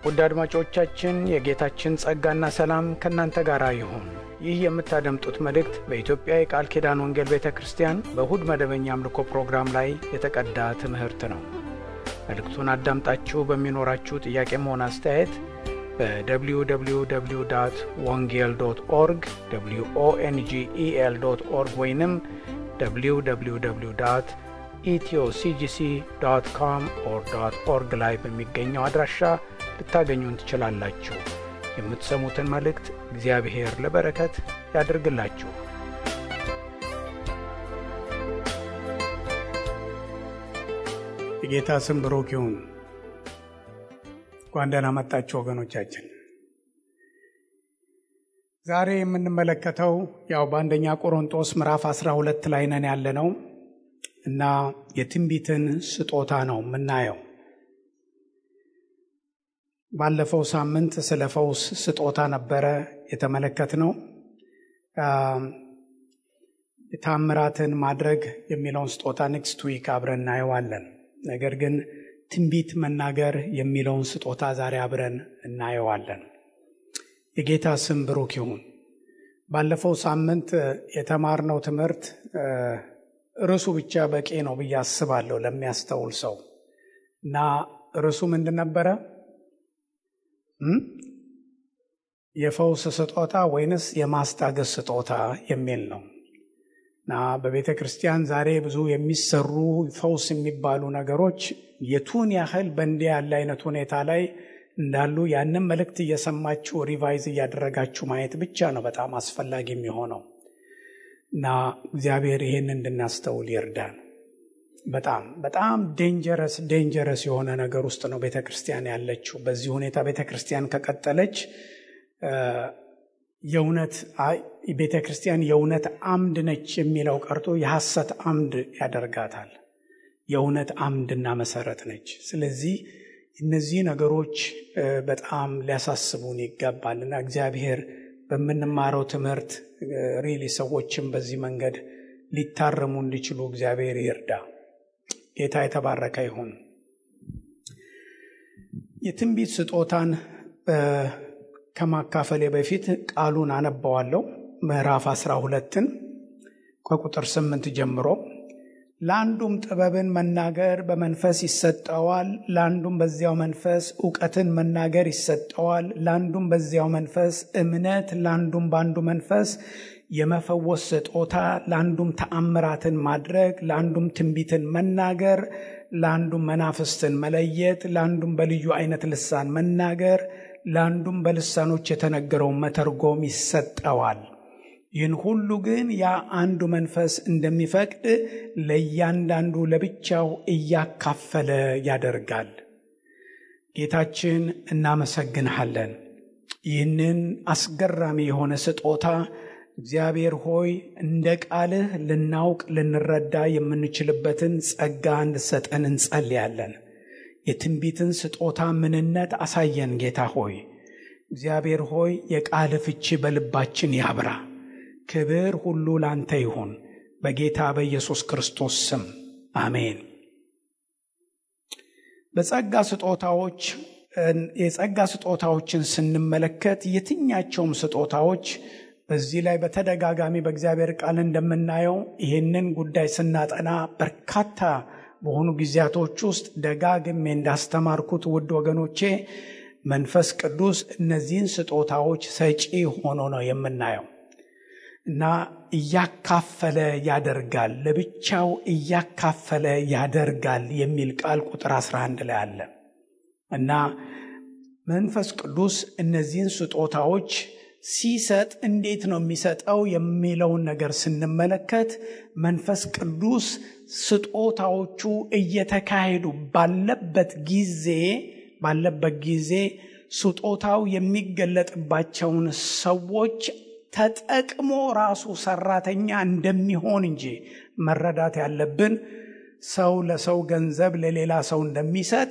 ውድ አድማጮቻችን የጌታችን ጸጋና ሰላም ከናንተ ጋር ይሁን። ይህ የምታደምጡት መልእክት በኢትዮጵያ የቃል ኪዳን ወንጌል ቤተክርስቲያን በእሁድ መደበኛ አምልኮ ፕሮግራም ላይ የተቀዳ ትምህርት ነው። መልእክቱን አዳምጣችሁ በሚኖራችሁ ጥያቄም ሆነ አስተያየት በwww.wongel.org wongel.org ወይንም www.ethioCGC.com/org ላይ በሚገኘው አድራሻ ልታገኙን ትችላላችሁ። የምትሰሙትን መልእክት እግዚአብሔር ለበረከት ያድርግላችሁ። የጌታ ስም ብሩክ ይሁን። እንኳን ደህና መጣችሁ ወገኖቻችን። ዛሬ የምንመለከተው በአንደኛ ቆሮንቶስ ምዕራፍ 12 ላይ ነን ያለነው እና የትንቢትን ስጦታ ነው የምናየው። ባለፈው ሳምንት ስለ ፈውስ ስጦታ ነበረ የተመለከትነው። ታምራትን ማድረግ የሚለውን ስጦታ ኔክስት ዊክ አብረን እናየዋለን። ነገር ግን ትንቢት መናገር የሚለውን ስጦታ ዛሬ አብረን እናየዋለን። የጌታ ስም ብሩክ ይሁን። ባለፈው ሳምንት የተማርነው ትምህርት ርዕሱ ብቻ በቂ ነው ብዬ አስባለሁ ለሚያስተውል ሰው እና ርዕሱ ምንድን ነበረ? የፈውስ ስጦታ ወይንስ የማስታገስ ስጦታ የሚል ነው። እና በቤተ ክርስቲያን ዛሬ ብዙ የሚሰሩ ፈውስ የሚባሉ ነገሮች የቱን ያህል በእንዲህ ያለ አይነት ሁኔታ ላይ እንዳሉ ያንን መልእክት እየሰማችሁ ሪቫይዝ እያደረጋችሁ ማየት ብቻ ነው በጣም አስፈላጊ የሚሆነው። እና እግዚአብሔር ይሄን እንድናስተውል ይርዳን። በጣም ዴንጀረስ የሆነ ነገር ውስጥ ነው ቤተክርስቲያን ያለችው። በዚህ ሁኔታ ቤተክርስቲያን ከቀጠለች ቤተክርስቲያን የእውነት አምድ ነች የሚለው ቀርቶ የሐሰት አምድ ያደርጋታል። የእውነት አምድና መሰረት ነች። ስለዚህ እነዚህ ነገሮች በጣም ሊያሳስቡን ይገባልና እግዚአብሔር በምንማረው ትምህርት ሪሊ ሰዎችም በዚህ መንገድ ሊታረሙ እንዲችሉ እግዚአብሔር ይርዳ። ጌታ የተባረከ ይሁን። የትንቢት ስጦታን ከማካፈሌ በፊት ቃሉን አነባዋለሁ። ምዕራፍ 12ን ከቁጥር 8 ጀምሮ ለአንዱም ጥበብን መናገር በመንፈስ ይሰጠዋል፣ ለአንዱም በዚያው መንፈስ ዕውቀትን መናገር ይሰጠዋል፣ ለአንዱም በዚያው መንፈስ እምነት፣ ለአንዱም በአንዱ መንፈስ የመፈወስ ስጦታ፣ ለአንዱም ተአምራትን ማድረግ፣ ለአንዱም ትንቢትን መናገር፣ ለአንዱም መናፍስትን መለየት፣ ለአንዱም በልዩ አይነት ልሳን መናገር፣ ለአንዱም በልሳኖች የተነገረውን መተርጎም ይሰጠዋል። ይህን ሁሉ ግን ያ አንዱ መንፈስ እንደሚፈቅድ ለእያንዳንዱ ለብቻው እያካፈለ ያደርጋል። ጌታችን እናመሰግንሃለን። ይህንን አስገራሚ የሆነ ስጦታ እግዚአብሔር ሆይ እንደ ቃልህ ልናውቅ ልንረዳ የምንችልበትን ጸጋ እንድሰጠን እንጸልያለን። የትንቢትን ስጦታ ምንነት አሳየን ጌታ ሆይ። እግዚአብሔር ሆይ የቃልህ ፍቺ በልባችን ያብራ። ክብር ሁሉ ላንተ ይሁን በጌታ በኢየሱስ ክርስቶስ ስም አሜን። የጸጋ ስጦታዎችን ስንመለከት የትኛቸውም ስጦታዎች በዚህ ላይ በተደጋጋሚ በእግዚአብሔር ቃል እንደምናየው ይህንን ጉዳይ ስናጠና በርካታ በሆኑ ጊዜያቶች ውስጥ ደጋግሜ እንዳስተማርኩት ውድ ወገኖቼ መንፈስ ቅዱስ እነዚህን ስጦታዎች ሰጪ ሆኖ ነው የምናየው እና እያካፈለ ያደርጋል፣ ለብቻው እያካፈለ ያደርጋል የሚል ቃል ቁጥር 11 ላይ አለ እና መንፈስ ቅዱስ እነዚህን ስጦታዎች ሲሰጥ እንዴት ነው የሚሰጠው የሚለውን ነገር ስንመለከት መንፈስ ቅዱስ ስጦታዎቹ እየተካሄዱ ባለበት ጊዜ ስጦታው የሚገለጥባቸውን ሰዎች ተጠቅሞ ራሱ ሰራተኛ እንደሚሆን እንጂ መረዳት ያለብን ሰው ለሰው ገንዘብ ለሌላ ሰው እንደሚሰጥ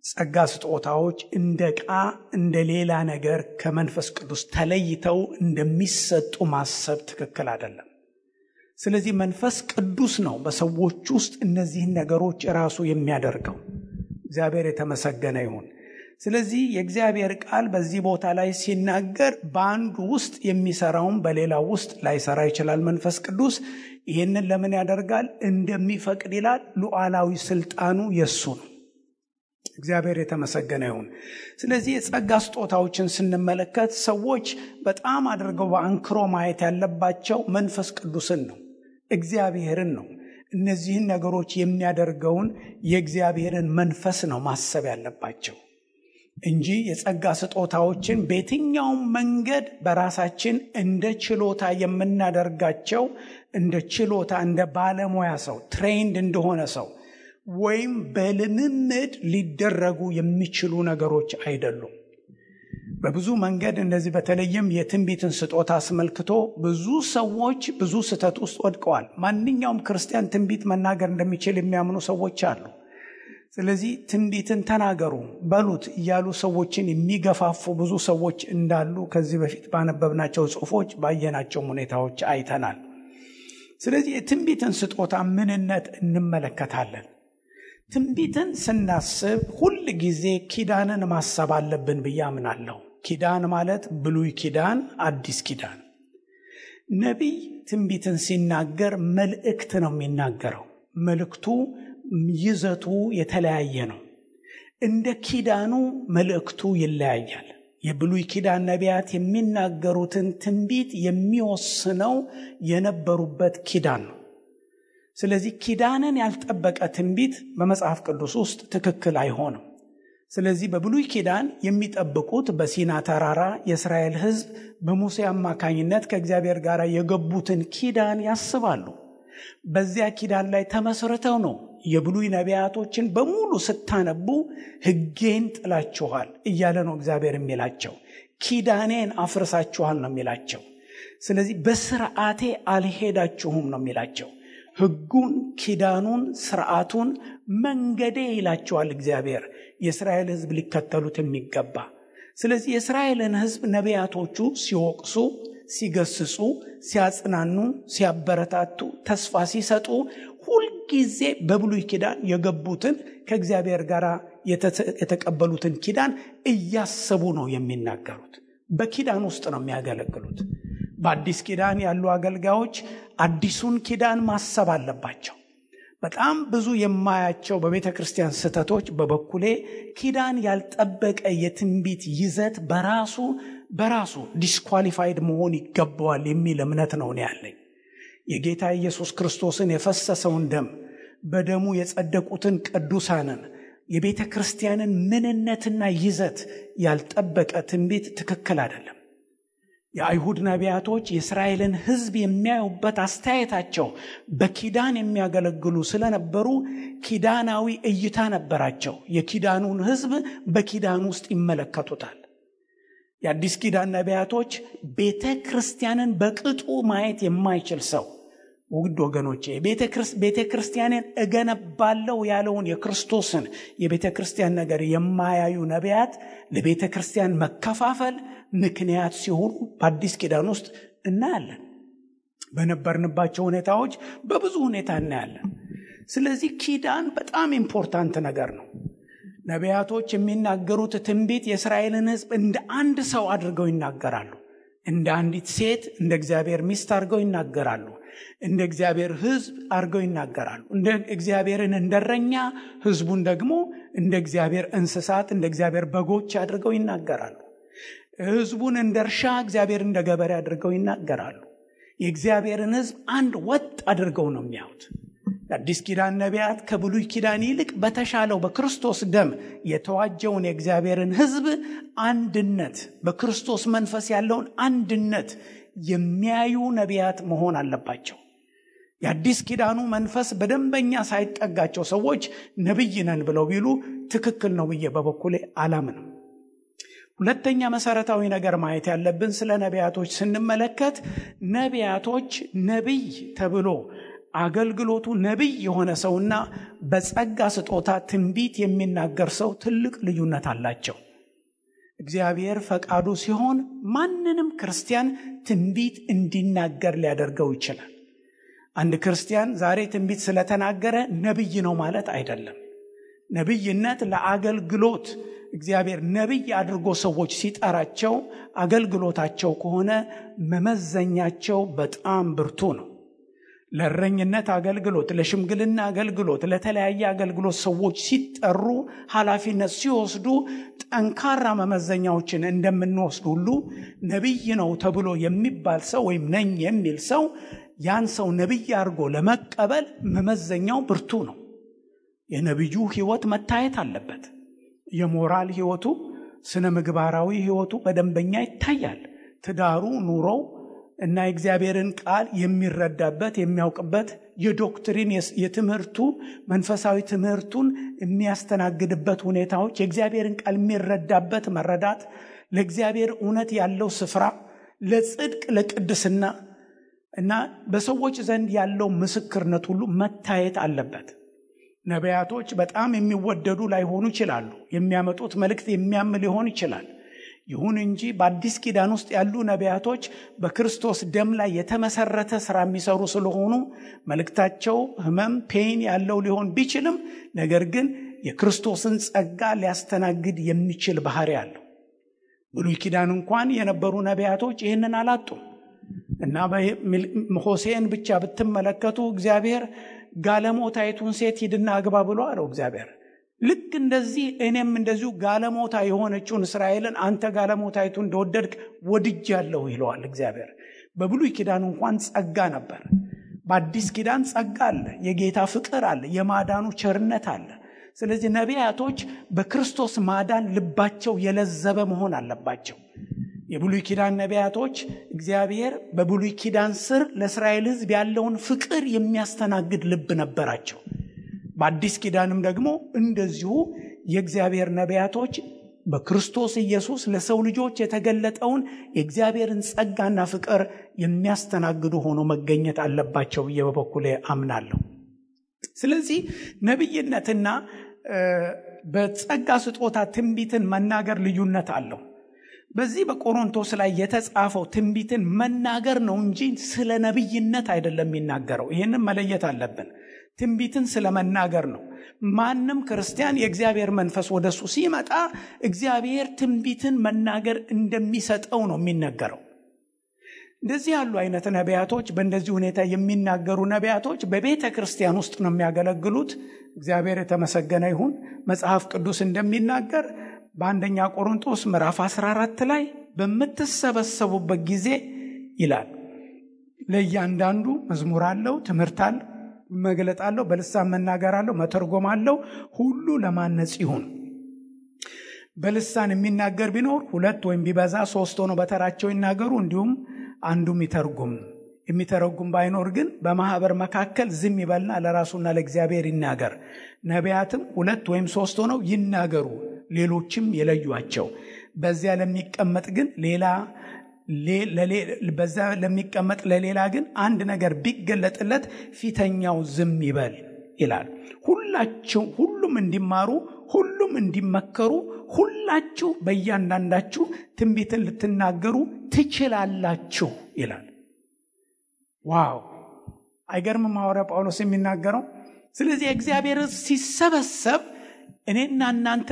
ጸጋ ስጦታዎች እንደ ዕቃ እንደ ሌላ ነገር ከመንፈስ ቅዱስ ተለይተው እንደሚሰጡ ማሰብ ትክክል አይደለም። ስለዚህ መንፈስ ቅዱስ ነው በሰዎች ውስጥ እነዚህን ነገሮች ራሱ የሚያደርገው። እግዚአብሔር የተመሰገነ ይሁን። ስለዚህ የእግዚአብሔር ቃል በዚህ ቦታ ላይ ሲናገር በአንዱ ውስጥ የሚሰራውን በሌላው ውስጥ ላይሰራ ይችላል። መንፈስ ቅዱስ ይህንን ለምን ያደርጋል? እንደሚፈቅድ ይላል። ሉዓላዊ ስልጣኑ የሱ ነው። እግዚአብሔር የተመሰገነ ይሁን። ስለዚህ የጸጋ ስጦታዎችን ስንመለከት ሰዎች በጣም አድርገው በአንክሮ ማየት ያለባቸው መንፈስ ቅዱስን ነው፣ እግዚአብሔርን ነው። እነዚህን ነገሮች የሚያደርገውን የእግዚአብሔርን መንፈስ ነው ማሰብ ያለባቸው እንጂ የጸጋ ስጦታዎችን በየትኛውም መንገድ በራሳችን እንደ ችሎታ የምናደርጋቸው እንደ ችሎታ እንደ ባለሙያ ሰው ትሬንድ እንደሆነ ሰው ወይም በልምምድ ሊደረጉ የሚችሉ ነገሮች አይደሉም። በብዙ መንገድ እንደዚህ በተለይም የትንቢትን ስጦታ አስመልክቶ ብዙ ሰዎች ብዙ ስህተት ውስጥ ወድቀዋል። ማንኛውም ክርስቲያን ትንቢት መናገር እንደሚችል የሚያምኑ ሰዎች አሉ። ስለዚህ ትንቢትን ተናገሩ በሉት እያሉ ሰዎችን የሚገፋፉ ብዙ ሰዎች እንዳሉ ከዚህ በፊት ባነበብናቸው ጽሑፎች ባየናቸው ሁኔታዎች አይተናል። ስለዚህ የትንቢትን ስጦታ ምንነት እንመለከታለን። ትንቢትን ስናስብ ሁል ጊዜ ኪዳንን ማሰብ አለብን ብዬ አምናለሁ። ኪዳን ማለት ብሉይ ኪዳን፣ አዲስ ኪዳን። ነቢይ ትንቢትን ሲናገር መልእክት ነው የሚናገረው። መልእክቱ ይዘቱ የተለያየ ነው። እንደ ኪዳኑ መልእክቱ ይለያያል። የብሉይ ኪዳን ነቢያት የሚናገሩትን ትንቢት የሚወስነው የነበሩበት ኪዳን ነው። ስለዚህ ኪዳንን ያልጠበቀ ትንቢት በመጽሐፍ ቅዱስ ውስጥ ትክክል አይሆንም። ስለዚህ በብሉይ ኪዳን የሚጠብቁት በሲና ተራራ የእስራኤል ሕዝብ በሙሴ አማካኝነት ከእግዚአብሔር ጋር የገቡትን ኪዳን ያስባሉ። በዚያ ኪዳን ላይ ተመስርተው ነው የብሉይ ነቢያቶችን በሙሉ ስታነቡ ሕጌን ጥላችኋል እያለ ነው እግዚአብሔር የሚላቸው። ኪዳኔን አፍርሳችኋል ነው የሚላቸው። ስለዚህ በስርዓቴ አልሄዳችሁም ነው የሚላቸው። ሕጉን፣ ኪዳኑን፣ ስርዓቱን መንገዴ ይላቸዋል እግዚአብሔር የእስራኤል ሕዝብ ሊከተሉት የሚገባ። ስለዚህ የእስራኤልን ሕዝብ ነቢያቶቹ ሲወቅሱ፣ ሲገስጹ፣ ሲያጽናኑ፣ ሲያበረታቱ፣ ተስፋ ሲሰጡ ሁልጊዜ በብሉይ ኪዳን የገቡትን ከእግዚአብሔር ጋር የተቀበሉትን ኪዳን እያሰቡ ነው የሚናገሩት። በኪዳን ውስጥ ነው የሚያገለግሉት። በአዲስ ኪዳን ያሉ አገልጋዮች አዲሱን ኪዳን ማሰብ አለባቸው። በጣም ብዙ የማያቸው በቤተ ክርስቲያን ስህተቶች በበኩሌ ኪዳን ያልጠበቀ የትንቢት ይዘት በራሱ ዲስኳሊፋይድ መሆን ይገባዋል የሚል እምነት ነው ያለኝ። የጌታ ኢየሱስ ክርስቶስን የፈሰሰውን ደም፣ በደሙ የጸደቁትን ቅዱሳንን፣ የቤተ ክርስቲያንን ምንነትና ይዘት ያልጠበቀ ትንቢት ትክክል አይደለም። የአይሁድ ነቢያቶች የእስራኤልን ሕዝብ የሚያዩበት አስተያየታቸው በኪዳን የሚያገለግሉ ስለነበሩ ኪዳናዊ እይታ ነበራቸው። የኪዳኑን ሕዝብ በኪዳን ውስጥ ይመለከቱታል። የአዲስ ኪዳን ነቢያቶች ቤተ ክርስቲያንን በቅጡ ማየት የማይችል ሰው፣ ውድ ወገኖቼ፣ ቤተ ክርስቲያንን እገነባለሁ ያለውን የክርስቶስን የቤተ ክርስቲያን ነገር የማያዩ ነቢያት ለቤተ ክርስቲያን መከፋፈል ምክንያት ሲሆኑ በአዲስ ኪዳን ውስጥ እናያለን። በነበርንባቸው ሁኔታዎች በብዙ ሁኔታ እናያለን። ስለዚህ ኪዳን በጣም ኢምፖርታንት ነገር ነው። ነቢያቶች የሚናገሩት ትንቢት የእስራኤልን ሕዝብ እንደ አንድ ሰው አድርገው ይናገራሉ። እንደ አንዲት ሴት እንደ እግዚአብሔር ሚስት አድርገው ይናገራሉ። እንደ እግዚአብሔር ሕዝብ አድርገው ይናገራሉ። እንደ እግዚአብሔርን እንደረኛ፣ ሕዝቡን ደግሞ እንደ እግዚአብሔር እንስሳት፣ እንደ እግዚአብሔር በጎች አድርገው ይናገራሉ። ሕዝቡን እንደ እርሻ፣ እግዚአብሔር እንደ ገበሬ አድርገው ይናገራሉ። የእግዚአብሔርን ሕዝብ አንድ ወጥ አድርገው ነው የሚያዩት። የአዲስ ኪዳን ነቢያት ከብሉይ ኪዳን ይልቅ በተሻለው በክርስቶስ ደም የተዋጀውን የእግዚአብሔርን ሕዝብ አንድነት፣ በክርስቶስ መንፈስ ያለውን አንድነት የሚያዩ ነቢያት መሆን አለባቸው። የአዲስ ኪዳኑ መንፈስ በደንበኛ ሳይጠጋቸው ሰዎች ነቢይ ነን ብለው ቢሉ ትክክል ነው ብዬ በበኩሌ አላምንም። ሁለተኛ መሰረታዊ ነገር ማየት ያለብን ስለ ነቢያቶች ስንመለከት ነቢያቶች ነቢይ ተብሎ አገልግሎቱ ነቢይ የሆነ ሰውና በጸጋ ስጦታ ትንቢት የሚናገር ሰው ትልቅ ልዩነት አላቸው። እግዚአብሔር ፈቃዱ ሲሆን ማንንም ክርስቲያን ትንቢት እንዲናገር ሊያደርገው ይችላል። አንድ ክርስቲያን ዛሬ ትንቢት ስለተናገረ ነቢይ ነው ማለት አይደለም። ነቢይነት ለአገልግሎት እግዚአብሔር ነቢይ አድርጎ ሰዎች ሲጠራቸው አገልግሎታቸው ከሆነ መመዘኛቸው በጣም ብርቱ ነው። ለእረኝነት አገልግሎት፣ ለሽምግልና አገልግሎት፣ ለተለያየ አገልግሎት ሰዎች ሲጠሩ ኃላፊነት ሲወስዱ ጠንካራ መመዘኛዎችን እንደምንወስድ ሁሉ ነቢይ ነው ተብሎ የሚባል ሰው ወይም ነኝ የሚል ሰው ያን ሰው ነቢይ አድርጎ ለመቀበል መመዘኛው ብርቱ ነው። የነቢዩ ሕይወት መታየት አለበት። የሞራል ሕይወቱ፣ ስነ ምግባራዊ ሕይወቱ በደንበኛ ይታያል። ትዳሩ፣ ኑሮው እና የእግዚአብሔርን ቃል የሚረዳበት የሚያውቅበት፣ የዶክትሪን የትምህርቱ መንፈሳዊ ትምህርቱን የሚያስተናግድበት ሁኔታዎች፣ የእግዚአብሔርን ቃል የሚረዳበት መረዳት፣ ለእግዚአብሔር እውነት ያለው ስፍራ፣ ለጽድቅ ለቅድስና እና በሰዎች ዘንድ ያለው ምስክርነት ሁሉ መታየት አለበት። ነቢያቶች በጣም የሚወደዱ ላይሆኑ ይችላሉ። የሚያመጡት መልእክት የሚያም ሊሆን ይችላል። ይሁን እንጂ በአዲስ ኪዳን ውስጥ ያሉ ነቢያቶች በክርስቶስ ደም ላይ የተመሰረተ ሥራ የሚሰሩ ስለሆኑ መልእክታቸው ህመም ፔን ያለው ሊሆን ቢችልም ነገር ግን የክርስቶስን ጸጋ ሊያስተናግድ የሚችል ባህሪ አለው። ብሉይ ኪዳን እንኳን የነበሩ ነቢያቶች ይህንን አላጡም እና ሆሴዕን ብቻ ብትመለከቱ እግዚአብሔር ጋለሞታይቱን ሴት ሂድና አግባ ብሎ አለው እግዚአብሔር። ልክ እንደዚህ እኔም እንደዚሁ ጋለሞታ የሆነችውን እስራኤልን አንተ ጋለሞታይቱ እንደወደድክ ወድጃለሁ ይለዋል እግዚአብሔር። በብሉይ ኪዳን እንኳን ጸጋ ነበር። በአዲስ ኪዳን ጸጋ አለ፣ የጌታ ፍቅር አለ፣ የማዳኑ ቸርነት አለ። ስለዚህ ነቢያቶች በክርስቶስ ማዳን ልባቸው የለዘበ መሆን አለባቸው። የብሉይ ኪዳን ነቢያቶች እግዚአብሔር በብሉይ ኪዳን ስር ለእስራኤል ሕዝብ ያለውን ፍቅር የሚያስተናግድ ልብ ነበራቸው። በአዲስ ኪዳንም ደግሞ እንደዚሁ የእግዚአብሔር ነቢያቶች በክርስቶስ ኢየሱስ ለሰው ልጆች የተገለጠውን የእግዚአብሔርን ጸጋና ፍቅር የሚያስተናግዱ ሆኖ መገኘት አለባቸው ብዬ በበኩሌ አምናለሁ። ስለዚህ ነቢይነትና በጸጋ ስጦታ ትንቢትን መናገር ልዩነት አለው። በዚህ በቆሮንቶስ ላይ የተጻፈው ትንቢትን መናገር ነው እንጂ ስለ ነቢይነት አይደለም የሚናገረው። ይህንን መለየት አለብን። ትንቢትን ስለ መናገር ነው። ማንም ክርስቲያን የእግዚአብሔር መንፈስ ወደሱ ሲመጣ እግዚአብሔር ትንቢትን መናገር እንደሚሰጠው ነው የሚነገረው። እንደዚህ ያሉ አይነት ነቢያቶች፣ በእንደዚህ ሁኔታ የሚናገሩ ነቢያቶች በቤተ ክርስቲያን ውስጥ ነው የሚያገለግሉት። እግዚአብሔር የተመሰገነ ይሁን። መጽሐፍ ቅዱስ እንደሚናገር በአንደኛ ቆሮንቶስ ምዕራፍ 14 ላይ በምትሰበሰቡበት ጊዜ ይላል ለእያንዳንዱ መዝሙር አለው፣ ትምህርት አለው፣ መግለጥ አለው፣ በልሳን መናገር አለው፣ መተርጎም አለው። ሁሉ ለማነጽ ይሁን። በልሳን የሚናገር ቢኖር 2 ወይም ቢበዛ 3 ሆነው በተራቸው ይናገሩ፣ እንዲሁም አንዱም ይተርጉም። የሚተረጉም ባይኖር ግን በማህበር መካከል ዝም ይበልና ለራሱና ለእግዚአብሔር ይናገር። ነቢያትም 2 ወይም 3 ሆነው ይናገሩ፣ ሌሎችም የለዩአቸው። በዚያ ለሚቀመጥ ለሌላ ግን አንድ ነገር ቢገለጥለት ፊተኛው ዝም ይበል ይላል። ሁሉም እንዲማሩ፣ ሁሉም እንዲመከሩ፣ ሁላችሁ በእያንዳንዳችሁ ትንቢትን ልትናገሩ ትችላላችሁ ይላል። ዋው! አይገርምም ሐዋርያ ጳውሎስ የሚናገረው? ስለዚህ እግዚአብሔር ሲሰበሰብ እኔና እናንተ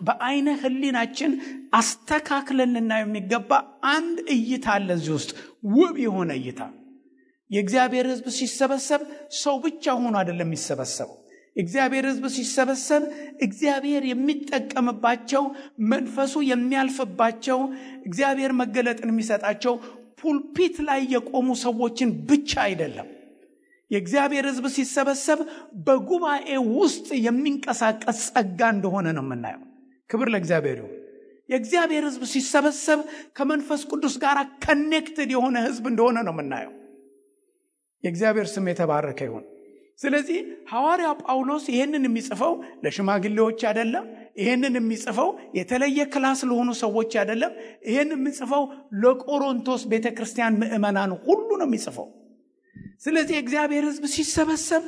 በአይነ ህሊናችን አስተካክለን ልናየው የሚገባ አንድ እይታ አለ እዚህ ውስጥ፣ ውብ የሆነ እይታ። የእግዚአብሔር ሕዝብ ሲሰበሰብ ሰው ብቻ ሆኖ አይደለም የሚሰበሰበው። እግዚአብሔር ሕዝብ ሲሰበሰብ እግዚአብሔር የሚጠቀምባቸው፣ መንፈሱ የሚያልፍባቸው፣ እግዚአብሔር መገለጥን የሚሰጣቸው ፑልፒት ላይ የቆሙ ሰዎችን ብቻ አይደለም። የእግዚአብሔር ሕዝብ ሲሰበሰብ በጉባኤ ውስጥ የሚንቀሳቀስ ጸጋ እንደሆነ ነው የምናየው። ክብር ለእግዚአብሔር ይሁን። የእግዚአብሔር ሕዝብ ሲሰበሰብ ከመንፈስ ቅዱስ ጋር ከኔክትድ የሆነ ሕዝብ እንደሆነ ነው የምናየው። የእግዚአብሔር ስም የተባረከ ይሁን። ስለዚህ ሐዋርያው ጳውሎስ ይህንን የሚጽፈው ለሽማግሌዎች አይደለም። ይህንን የሚጽፈው የተለየ ክላስ ለሆኑ ሰዎች አይደለም። ይህንን የሚጽፈው ለቆሮንቶስ ቤተክርስቲያን ምዕመናን ሁሉ ነው የሚጽፈው። ስለዚህ እግዚአብሔር ሕዝብ ሲሰበሰብ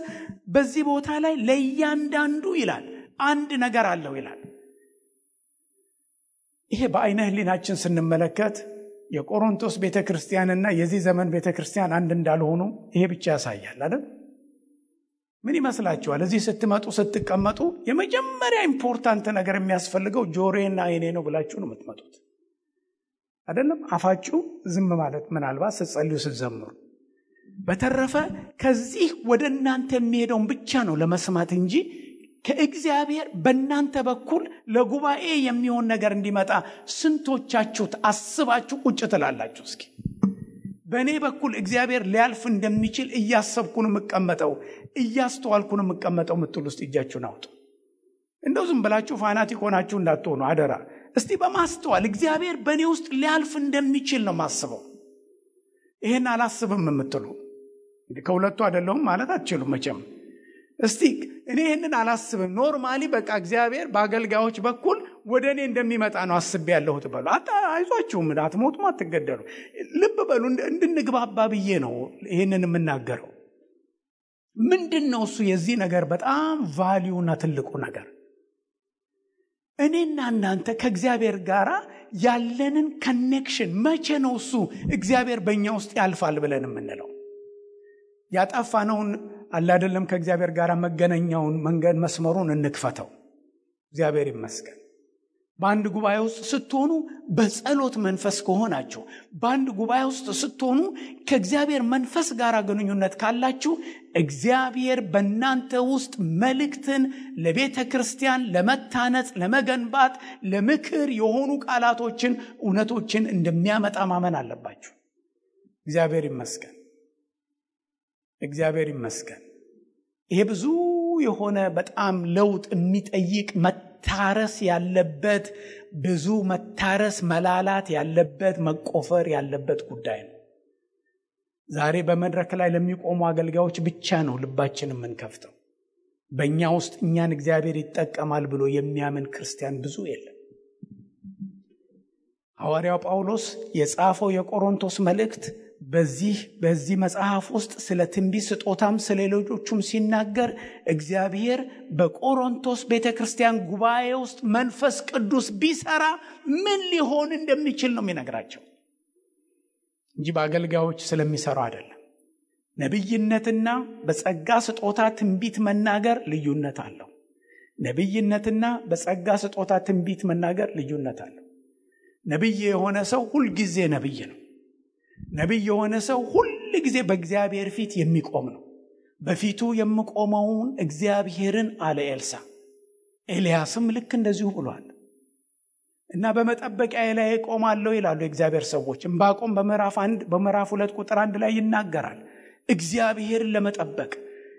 በዚህ ቦታ ላይ ለእያንዳንዱ ይላል አንድ ነገር አለው ይላል። ይሄ በአይነ ህሊናችን ስንመለከት የቆሮንቶስ ቤተክርስቲያንና የዚህ ዘመን ቤተክርስቲያን አንድ እንዳልሆኑ ይሄ ብቻ ያሳያል አይደል? ምን ይመስላችኋል? እዚህ ስትመጡ ስትቀመጡ የመጀመሪያ ኢምፖርታንት ነገር የሚያስፈልገው ጆሮዬና አይኔ ነው ብላችሁ ነው የምትመጡት አይደለም? አፋችሁ ዝም ማለት ምናልባት ስትጸልዩ ስትዘምሩ። በተረፈ ከዚህ ወደ እናንተ የሚሄደውን ብቻ ነው ለመስማት እንጂ ከእግዚአብሔር በእናንተ በኩል ለጉባኤ የሚሆን ነገር እንዲመጣ ስንቶቻችሁ አስባችሁ ቁጭ ትላላችሁ? እስኪ በእኔ በኩል እግዚአብሔር ሊያልፍ እንደሚችል እያሰብኩ ነው የምቀመጠው፣ እያስተዋልኩ ነው የምቀመጠው ምትሉ ውስጥ እጃችሁን አውጡ። እንደው ዝም ብላችሁ ፋናቲክ ሆናችሁ እንዳትሆኑ አደራ። እስቲ በማስተዋል እግዚአብሔር በእኔ ውስጥ ሊያልፍ እንደሚችል ነው ማስበው። ይሄን አላስብም የምትሉ ከሁለቱ አይደለሁም ማለት አትችሉም መቼም። እስቲ እኔ ይሄንን አላስብም፣ ኖርማሊ በቃ እግዚአብሔር በአገልጋዮች በኩል ወደ እኔ እንደሚመጣ ነው አስቤ ያለሁት በሉ። አይዟችሁም፣ አትሞቱም፣ አትገደሉ። ልብ በሉ። እንድንግባባ ብዬ ነው ይሄንን የምናገረው። ምንድነው እሱ የዚህ ነገር በጣም ቫልዩና ትልቁ ነገር? እኔና እናንተ ከእግዚአብሔር ጋር ያለንን ኮኔክሽን መቼ ነው እሱ እግዚአብሔር በእኛ ውስጥ ያልፋል ብለን የምንለው? ያጠፋነውን አለ አይደለም ከእግዚአብሔር ጋር መገናኛውን መንገድ መስመሩን እንክፈተው። እግዚአብሔር ይመስገን። በአንድ ጉባኤ ውስጥ ስትሆኑ በጸሎት መንፈስ ከሆናችሁ፣ በአንድ ጉባኤ ውስጥ ስትሆኑ ከእግዚአብሔር መንፈስ ጋር ግንኙነት ካላችሁ እግዚአብሔር በእናንተ ውስጥ መልእክትን ለቤተ ክርስቲያን ለመታነጽ፣ ለመገንባት፣ ለምክር የሆኑ ቃላቶችን፣ እውነቶችን እንደሚያመጣ ማመን አለባችሁ። እግዚአብሔር ይመስገን። እግዚአብሔር ይመስገን። ይሄ ብዙ የሆነ በጣም ለውጥ የሚጠይቅ መታረስ ያለበት፣ ብዙ መታረስ መላላት ያለበት፣ መቆፈር ያለበት ጉዳይ ነው። ዛሬ በመድረክ ላይ ለሚቆሙ አገልጋዮች ብቻ ነው ልባችንን የምንከፍተው። በእኛ ውስጥ እኛን እግዚአብሔር ይጠቀማል ብሎ የሚያምን ክርስቲያን ብዙ የለም። ሐዋርያው ጳውሎስ የጻፈው የቆሮንቶስ መልእክት በዚህ መጽሐፍ ውስጥ ስለ ትንቢት ስጦታም ስለ ሌሎቹም ሲናገር እግዚአብሔር በቆሮንቶስ ቤተክርስቲያን ጉባኤ ውስጥ መንፈስ ቅዱስ ቢሰራ ምን ሊሆን እንደሚችል ነው የሚነግራቸው እንጂ በአገልጋዮች ስለሚሰራው አይደለም። ነብይነትና በጸጋ ስጦታ ትንቢት መናገር ልዩነት አለው። ነብይነትና በጸጋ ስጦታ ትንቢት መናገር ልዩነት አለው። ነብይ የሆነ ሰው ሁሉ ጊዜ ነብይ ነው። ነብይ የሆነ ሰው ሁሉ ጊዜ በእግዚአብሔር ፊት የሚቆም ነው። በፊቱ የሚቆመውን እግዚአብሔርን አለ ኤልሳ። ኤልያስም ልክ እንደዚሁ ብሏል። እና በመጠበቂያ ላይ ቆማለሁ ይላሉ የእግዚአብሔር ሰዎች። ዕንባቆም በምዕራፍ 2 ቁጥር 1 ላይ ይናገራል። እግዚአብሔርን ለመጠበቅ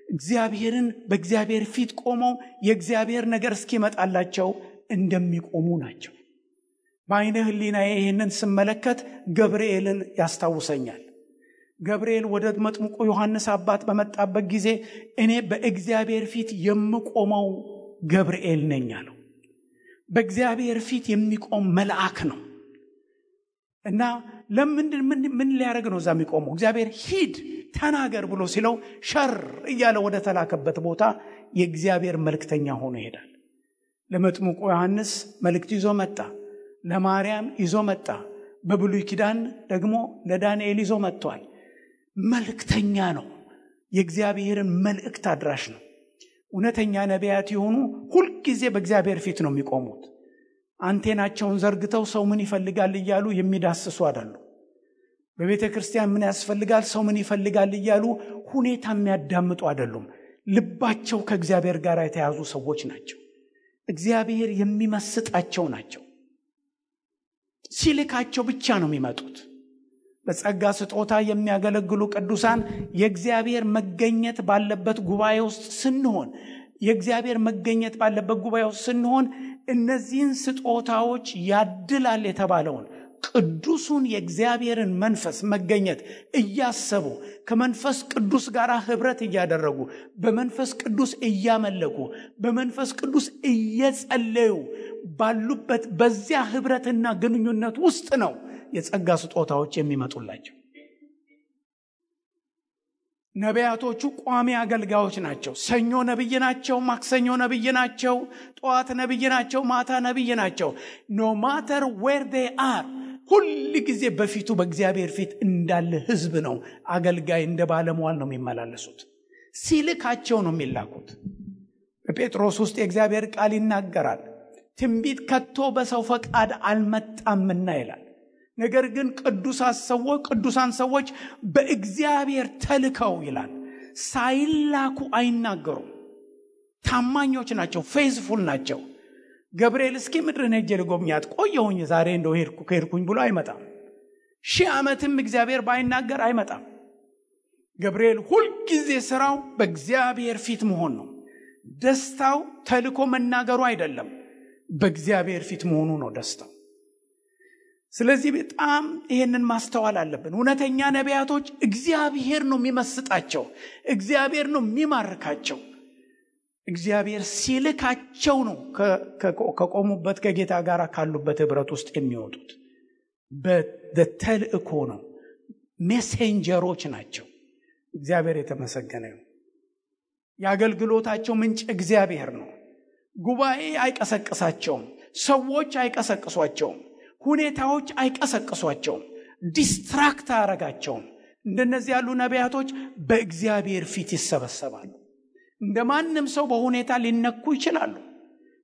እግዚአብሔርን በእግዚአብሔር ፊት ቆመው የእግዚአብሔር ነገር እስኪመጣላቸው እንደሚቆሙ ናቸው። በአይነ ህሊናዬ ይህንን ስመለከት ገብርኤልን ያስታውሰኛል። ገብርኤል ወደ መጥምቁ ዮሐንስ አባት በመጣበት ጊዜ እኔ በእግዚአብሔር ፊት የምቆመው ገብርኤል ነኝ አለው። በእግዚአብሔር ፊት የሚቆም መልአክ ነው። እና ምን ሊያደርግ ነው እዛ የሚቆመው? እግዚአብሔር ሂድ ተናገር ብሎ ሲለው ሸር እያለ ወደ ተላከበት ቦታ የእግዚአብሔር መልእክተኛ ሆኖ ይሄዳል። ለመጥምቁ ዮሐንስ መልእክት ይዞ መጣ። ለማርያም ይዞ መጣ። በብሉይ ኪዳን ደግሞ ለዳንኤል ይዞ መጥቷል። መልእክተኛ ነው። የእግዚአብሔርን መልእክት አድራሽ ነው። እውነተኛ ነቢያት የሆኑ ሁሉ ጊዜ በእግዚአብሔር ፊት ነው የሚቆሙት። አንቴናቸውን ዘርግተው ሰው ምን ይፈልጋል እያሉ የሚዳስሱ አይደሉ። በቤተ ክርስቲያን ምን ያስፈልጋል፣ ሰው ምን ይፈልጋል እያሉ ሁኔታ የሚያዳምጡ አይደሉም። ልባቸው ከእግዚአብሔር ጋር የተያዙ ሰዎች ናቸው። እግዚአብሔር የሚመስጣቸው ናቸው። ሲልካቸው ብቻ ነው የሚመጡት። በጸጋ ስጦታ የሚያገለግሉ ቅዱሳን የእግዚአብሔር መገኘት ባለበት ጉባኤ ውስጥ ስንሆን የእግዚአብሔር መገኘት ባለበት ጉባኤ ውስጥ ስንሆን እነዚህን ስጦታዎች ያድላል የተባለውን ቅዱሱን የእግዚአብሔርን መንፈስ መገኘት እያሰቡ ከመንፈስ ቅዱስ ጋር ህብረት እያደረጉ በመንፈስ ቅዱስ እያመለኩ በመንፈስ ቅዱስ እየጸለዩ ባሉበት በዚያ ህብረትና ግንኙነት ውስጥ ነው የጸጋ ስጦታዎች የሚመጡላቸው። ነቢያቶቹ ቋሚ አገልጋዮች ናቸው። ሰኞ ነብይ ናቸው፣ ማክሰኞ ነብይ ናቸው፣ ጠዋት ነብይ ናቸው፣ ማታ ነብይ ናቸው። no matter where they are ሁሉ ጊዜ በፊቱ በእግዚአብሔር ፊት እንዳለ ህዝብ ነው አገልጋይ እንደ ባለሟል ነው የሚመላለሱት። ሲልካቸው ነው የሚላኩት። በጴጥሮስ ውስጥ የእግዚአብሔር ቃል ይናገራል። ትንቢት ከቶ በሰው ፈቃድ አልመጣምና ይላል። ነገር ግን ቅዱሳን ሰዎች በእግዚአብሔር ተልከው ይላል ሳይላኩ አይናገሩም። ታማኞች ናቸው፣ ፌዝፉል ናቸው። ገብርኤል እስኪ ምድርን ሄጄ ልጎብኛት ቆየሁኝ ዛሬ እንደው ከሄድኩኝ ብሎ አይመጣም። 1000 ዓመትም እግዚአብሔር ባይናገር አይመጣም። ገብርኤል ሁልጊዜ ስራው በእግዚአብሔር ፊት መሆን ነው። ደስታው ተልኮ መናገሩ አይደለም፣ በእግዚአብሔር ፊት መሆኑ ነው ደስታው። ስለዚህ በጣም ይሄንን ማስተዋል አለብን። እውነተኛ ነቢያቶች እግዚአብሔር ነው የሚመስጣቸው፣ እግዚአብሔር ነው የሚማርካቸው። እግዚአብሔር ሲልካቸው ነው ከቆሙበት ከጌታ ጋር ካሉበት ህብረት ውስጥ የሚወጡት። በተልእኮ ነው፣ ሜሴንጀሮች ናቸው። እግዚአብሔር የተመሰገነ ነው። የአገልግሎታቸው ምንጭ እግዚአብሔር ነው። ጉባኤ አይቀሰቅሳቸውም፣ ሰዎች አይቀሰቅሷቸውም፣ ሁኔታዎች አይቀሰቅሷቸውም፣ ዲስትራክት አያረጋቸውም። እንደነዚህ ያሉ ነቢያቶች በእግዚአብሔር ፊት ይሰበሰባሉ። እንደማንም ሰው በሁኔታ ሊነኩ ይችላሉ።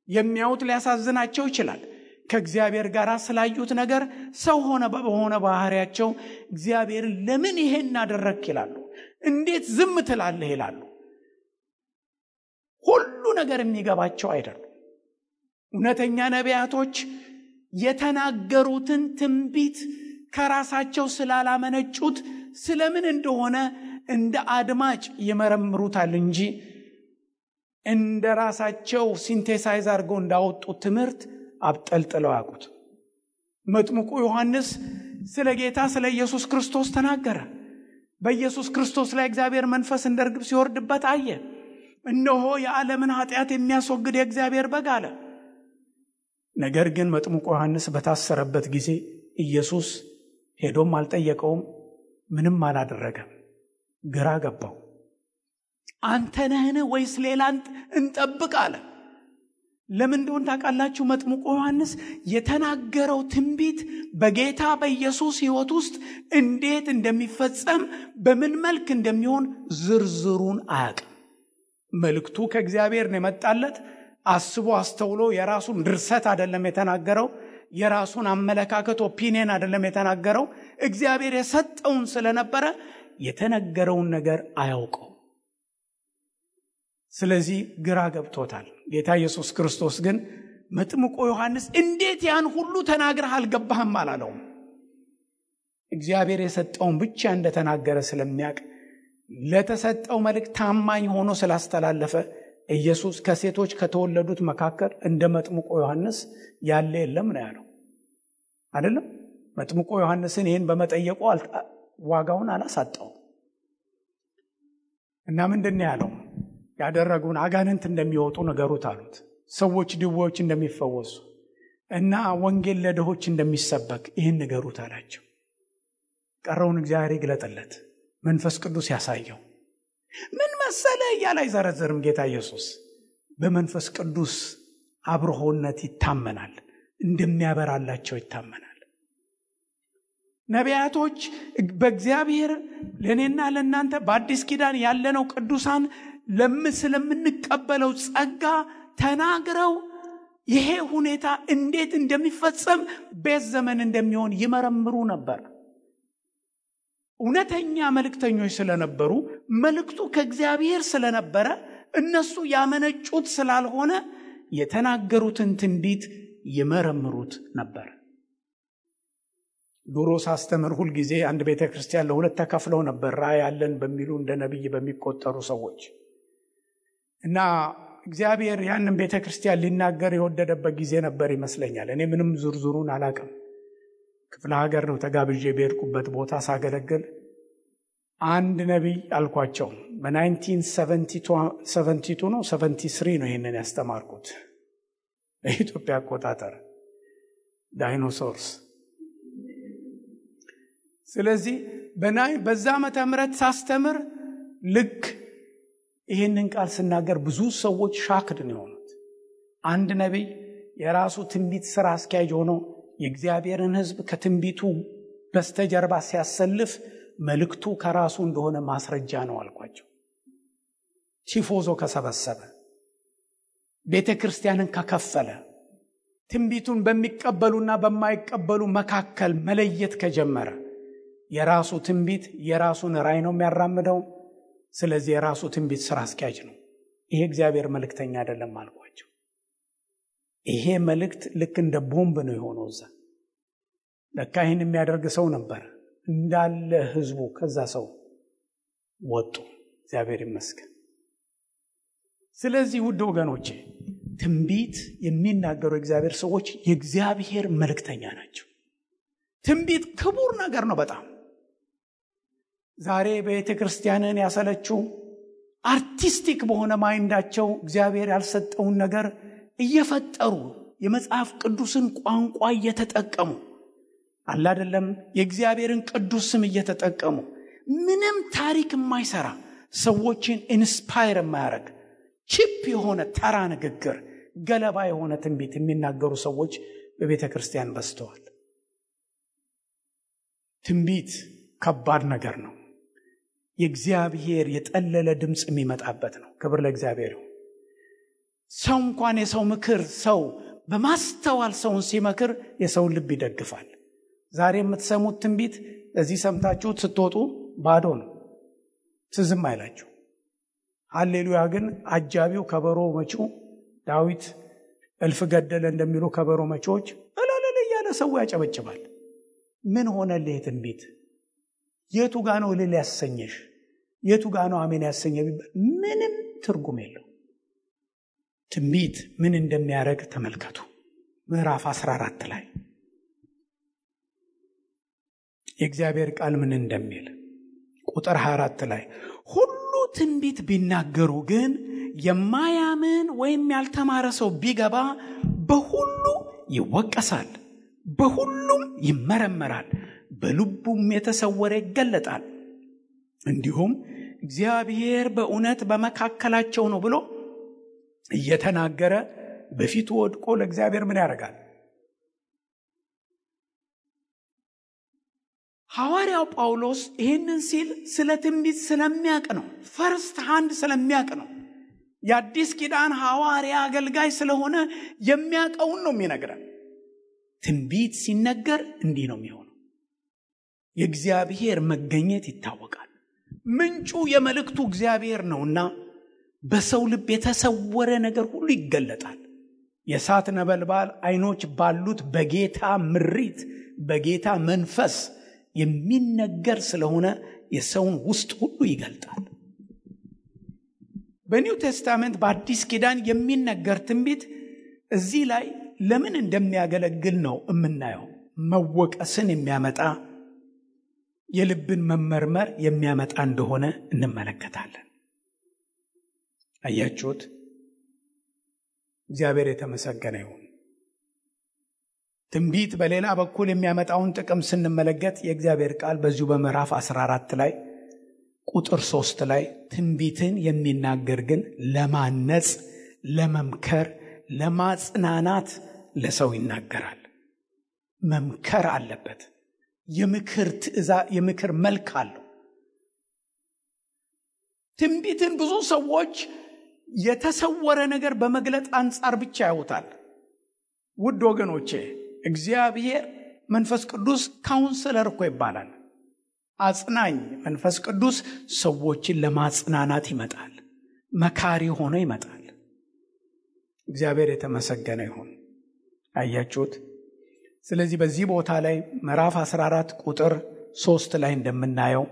የሚያዩት ሊያሳዝናቸው ይችላል። ከእግዚአብሔር ጋር ስላዩት ነገር ሰው በሆነ ባህሪያቸው እግዚአብሔርን ለምን ይሄን አደረክ ይላሉ። እንዴት ዝም ትላለህ ይላሉ። ሁሉ ነገር የሚገባቸው አይደሉም። እውነተኛ ነቢያቶች የተናገሩትን ትንቢት ከራሳቸው ስላላመነጩት ስለምን እንደሆነ እንደ አድማጭ ይመረምሩታል እንጂ እንደ ራሳቸው ሲንቴሳይዝ አድርገው እንዳወጡት ትምህርት አብጠልጥለው ያውቁት። መጥምቁ ዮሐንስ ስለ ጌታ ስለ ኢየሱስ ክርስቶስ ተናገረ። በኢየሱስ ክርስቶስ ላይ እግዚአብሔር መንፈስ እንደ ርግብ ሲወርድበት አየ። እነሆ የዓለምን ኃጢአት የሚያስወግድ የእግዚአብሔር በግ አለ። ነገር ግን መጥምቁ ዮሐንስ በታሰረበት ጊዜ ኢየሱስ ሄዶም አልጠየቀውም፣ ምንም አላደረገም። ግራ ገባው። አንተ ነህን ወይስ ሌላ እንጠብቅ አለ። ለምን እንደሆነ ታውቃላችሁ? መጥምቁ ዮሐንስ የተናገረው ትንቢት በጌታ በኢየሱስ ሕይወት ውስጥ እንዴት እንደሚፈጸም በምን መልክ እንደሚሆን ዝርዝሩን አያውቅም። መልእክቱ ከእግዚአብሔር ነው የመጣለት። አስቦ አስተውሎ የራሱን ድርሰት አይደለም የተናገረው፣ የራሱን አመለካከት ኦፒኒየን አይደለም የተናገረው። እግዚአብሔር የሰጠውን ስለነበረ የተነገረውን ነገር አያውቀው። ስለዚህ ግራ ገብቶታል። ጌታ ኢየሱስ ክርስቶስ ግን መጥምቁ ዮሐንስ እንዴት ያን ሁሉ ተናግረህ አልገባህም አላለውም። እግዚአብሔር የሰጠውን ብቻ እንደተናገረ ስለሚያውቅ ለተሰጠው መልእክት ታማኝ ሆኖ ስላስተላለፈ ኢየሱስ ከሴቶች ከተወለዱት መካከል እንደ መጥምቁ ዮሐንስ ያለ የለም ነው ያለው አይደለም? መጥምቁ ዮሐንስን ይህን በመጠየቁ ዋጋውን አላሳጣው እና ምንድን ያለው? ያደረጉን አጋንንት እንደሚወጡ ነገሩት አሉት። ሰዎች ድውዮች እንደሚፈወሱ እና ወንጌል ለድሆች እንደሚሰበክ ይህን ነገሩት አላቸው። ቀረውን እግዚአብሔር ይግለጥለት፣ መንፈስ ቅዱስ ያሳየው። ምን መሰለ እያለ አይዘረዘርም ጌታ ኢየሱስ። በመንፈስ ቅዱስ አብርሆነት ይታመናል፣ እንደሚያበራላቸው ይታመናል። ነቢያቶች በእግዚአብሔር ለእኔና ለእናንተ በአዲስ ኪዳን ያለነው ቅዱሳን ስለምንቀበለው ጸጋ ተናግረው ይሄ ሁኔታ እንዴት እንደሚፈጸም በዚህ ዘመን እንደሚሆን ይመረምሩ ነበር። እውነተኛ መልእክተኞች ስለነበሩ፣ መልእክቱ ከእግዚአብሔር ስለነበረ እነሱ ያመነጩት ስላልሆነ የተናገሩትን ትንቢት ይመረምሩት ነበር። ድሮ ሳስተምር ሁል ጊዜ አንድ ቤተክርስቲያን ለሁለት ተከፍለው ነበር፣ ራእይ ያለን በሚሉ እንደ ነብይ በሚቆጠሩ ሰዎች እና እግዚአብሔር ያንን ቤተክርስቲያን ሊናገር የወደደበት ጊዜ ነበር ይመስለኛል። እኔ ምንም ዝርዝሩን አላውቅም። ክፍለ ሀገር ነው ተጋብዤ በሄድኩበት ቦታ ሳገለግል አንድ ነቢይ አልኳቸው። በ1972 ነው 73 ነው ይሄንን ያስተማርኩት በኢትዮጵያ አቆጣጠር ዳይኖሶርስ። ስለዚህ በዛ ዓመተ ምህረት ሳስተምር ልክ ይሄንን ቃል ስናገር ብዙ ሰዎች ሻክድ ነው የሆኑት። አንድ ነቢይ የራሱ ትንቢት ስራ አስኪያጅ ሆኖ የእግዚአብሔርን ሕዝብ ከትንቢቱ በስተጀርባ ሲያሰልፍ መልእክቱ ከራሱ እንደሆነ ማስረጃ ነው አልኳቸው። ቲፎዞ ከሰበሰበ፣ ቤተ ክርስቲያንን ከከፈለ፣ ትንቢቱን በሚቀበሉና በማይቀበሉ መካከል መለየት ከጀመረ የራሱ ትንቢት የራሱን ራእይ ነው የሚያራምደው። ስለዚህ የራሱ ትንቢት ስራ አስኪያጅ ነው። ይሄ እግዚአብሔር መልእክተኛ አይደለም አልኳቸው። ይሄ መልእክት ልክ እንደ ቦምብ ነው የሆነው። እዛ ለካ ይህን የሚያደርግ ሰው ነበር። እንዳለ ህዝቡ ከዛ ሰው ወጡ። እግዚአብሔር ይመስገን። ስለዚህ ውድ ወገኖቼ ትንቢት የሚናገሩ እግዚአብሔር ሰዎች የእግዚአብሔር መልእክተኛ ናቸው። ትንቢት ክቡር ነገር ነው በጣም። ዛሬ ቤተ ክርስቲያንን ያሰለችው አርቲስቲክ በሆነ ማይንዳቸው እግዚአብሔር ያልሰጠውን ነገር እየፈጠሩ የመጽሐፍ ቅዱስን ቋንቋ እየተጠቀሙ አለ አይደለም፣ የእግዚአብሔርን ቅዱስ ስም እየተጠቀሙ ምንም ታሪክ የማይሰራ ሰዎችን ኢንስፓየር የማያደርግ ቺፕ የሆነ ተራ ንግግር፣ ገለባ የሆነ ትንቢት የሚናገሩ ሰዎች በቤተ ክርስቲያን በዝተዋል። ትንቢት ከባድ ነገር ነው። የእግዚአብሔር የጠለለ ድምፅ የሚመጣበት ነው። ክብር ለእግዚአብሔር ይሁን። ሰው እንኳን የሰው ምክር ሰው በማስተዋል ሰውን ሲመክር የሰውን ልብ ይደግፋል። ዛሬ የምትሰሙት ትንቢት እዚህ ሰምታችሁት ስትወጡ ባዶ ነው፣ ትዝም አይላችሁ። ሃሌሉያ ግን አጃቢው ከበሮ መጪው ዳዊት እልፍ ገደለ እንደሚሉ ከበሮ መጪዎች እላለ ያለ ሰው ያጨበጭባል። ምን ሆነልህ ትንቢት? የቱ ጋር ነው እልል ያሰኘሽ? የቱ ጋር ነው አሜን ያሰኘ? ምንም ትርጉም የለው። ትንቢት ምን እንደሚያደርግ ተመልከቱ። ምዕራፍ 14 ላይ የእግዚአብሔር ቃል ምን እንደሚል ቁጥር 24 ላይ ሁሉ ትንቢት ቢናገሩ ግን የማያምን ወይም ያልተማረ ሰው ቢገባ በሁሉ ይወቀሳል፣ በሁሉም ይመረመራል፣ በልቡም የተሰወረ ይገለጣል። እንዲሁም እግዚአብሔር በእውነት በመካከላቸው ነው ብሎ እየተናገረ በፊቱ ወድቆ ለእግዚአብሔር ምን ያደርጋል? ሐዋርያው ጳውሎስ ይህንን ሲል ስለ ትንቢት ስለሚያውቅ ነው። ፈርስት ሃንድ ስለሚያውቅ ነው። የአዲስ ኪዳን ሐዋርያ አገልጋይ ስለሆነ የሚያውቀውን ነው የሚነግረን። ትንቢት ሲነገር እንዲህ ነው የሚሆነው። የእግዚአብሔር መገኘት ይታወቃል። ምንጩ የመልእክቱ እግዚአብሔር ነውና በሰው ልብ የተሰወረ ነገር ሁሉ ይገለጣል። የእሳት ነበልባል አይኖች ባሉት በጌታ ምሪት በጌታ መንፈስ የሚነገር ስለሆነ የሰውን ውስጥ ሁሉ ይገልጣል። በኒው ቴስታመንት በአዲስ ኪዳን የሚነገር ትንቢት እዚህ ላይ ለምን እንደሚያገለግል ነው የምናየው። መወቀስን የሚያመጣ የልብን መመርመር የሚያመጣ እንደሆነ እንመለከታለን። አያችሁት? እግዚአብሔር የተመሰገነ ይሁን። ትንቢት በሌላ በኩል የሚያመጣውን ጥቅም ስንመለከት የእግዚአብሔር ቃል በዚሁ በምዕራፍ 14 ላይ ቁጥር 3 ላይ ትንቢትን የሚናገር ግን ለማነጽ፣ ለመምከር፣ ለማጽናናት ለሰው ይናገራል። መምከር አለበት። የምክር ትእዛዝ የምክር መልክ አለው። ትንቢትን ብዙ ሰዎች የተሰወረ ነገር በመግለጥ አንጻር ብቻ ያዩታል። ውድ ወገኖቼ እግዚአብሔር መንፈስ ቅዱስ ካውንስለር እኮ ይባላል። አጽናኝ መንፈስ ቅዱስ ሰዎችን ለማጽናናት ይመጣል። መካሪ ሆኖ ይመጣል። እግዚአብሔር የተመሰገነ ይሁን። አያችሁት? ስለዚህ በዚህ ቦታ ላይ ምዕራፍ 14 ቁጥር 3 ላይ እንደምናየው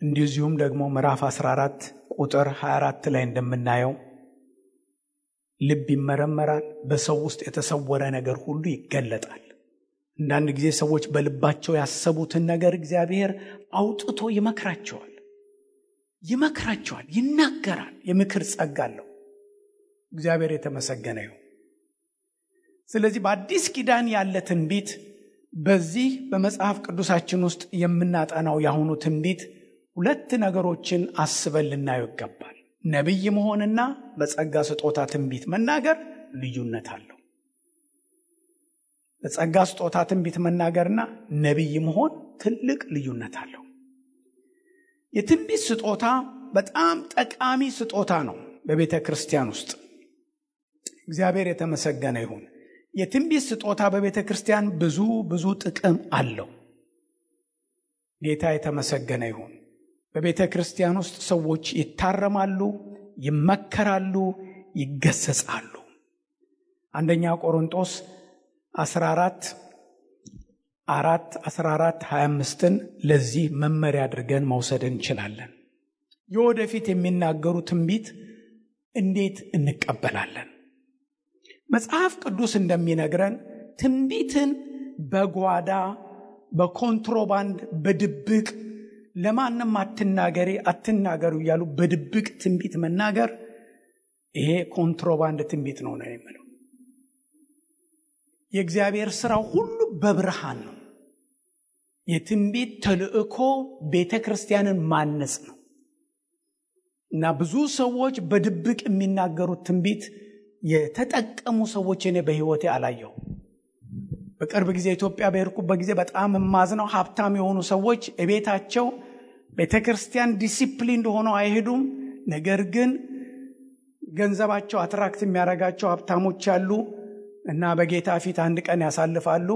እንደዚሁም ደግሞ ምዕራፍ 14 ቁጥር 24 ላይ እንደምናየው ልብ ይመረመራል፣ በሰው ውስጥ የተሰወረ ነገር ሁሉ ይገለጣል። አንዳንድ ጊዜ ሰዎች በልባቸው ያሰቡትን ነገር እግዚአብሔር አውጥቶ ይመክራቸዋል፣ ይናገራል። የምክር ጸጋ አለው። እግዚአብሔር የተመሰገነ ይሁን። ስለዚህ በአዲስ ኪዳን ያለ ትንቢት በዚህ በመጽሐፍ ቅዱሳችን ውስጥ የምናጠናው ያሁኑ ትንቢት ሁለት ነገሮችን አስበን ልናየው ይገባል። ነቢይ መሆንና በጸጋ ስጦታ ትንቢት መናገር ልዩነት አለው። በጸጋ ስጦታ ትንቢት መናገርና ነቢይ መሆን ትልቅ ልዩነት አለው። የትንቢት ስጦታ በጣም ጠቃሚ ስጦታ ነው በቤተ ክርስቲያን ውስጥ። እግዚአብሔር የተመሰገነ ይሁን። የትንቢት ስጦታ በቤተ ክርስቲያን ብዙ ጥቅም አለው። ጌታ የተመሰገነ ይሁን። በቤተ ክርስቲያን ውስጥ ሰዎች ይታረማሉ፣ ይመከራሉ፣ ይገሰጻሉ። አንደኛ ቆሮንቶስ 14:25 ለዚህ መመሪያ አድርገን መውሰድ እንችላለን። የወደፊት የሚናገሩ ትንቢት እንዴት እንቀበላለን? መጽሐፍ ቅዱስ እንደሚነግረን ትንቢትን በጓዳ በኮንትሮባንድ በድብቅ ለማንም አትናገሩ እያሉ በድብቅ ትንቢት መናገር ይሄ ኮንትሮባንድ ትንቢት ነው የሚለው። የእግዚአብሔር ሥራው ሁሉ በብርሃን ነው። የትንቢት ተልእኮ ቤተ ክርስቲያንን ማነጽ ነው እና ብዙ ሰዎች በድብቅ የሚናገሩት ትንቢት የተጠቀሙ ሰዎች እኔ በሕይወቴ አላየሁ። በቅርብ ጊዜ ኢትዮጵያ በሄድኩበት ጊዜ በጣም የማዝነው ሀብታም የሆኑ ሰዎች ቤታቸው ቤተ ክርስቲያን ዲሲፕሊን ሆነው አይሄዱም። ነገር ግን ገንዘባቸው አትራክት የሚያደርጋቸው ሀብታሞች ያሉ እና በጌታ ፊት አንድ ቀን ያሳልፋሉ።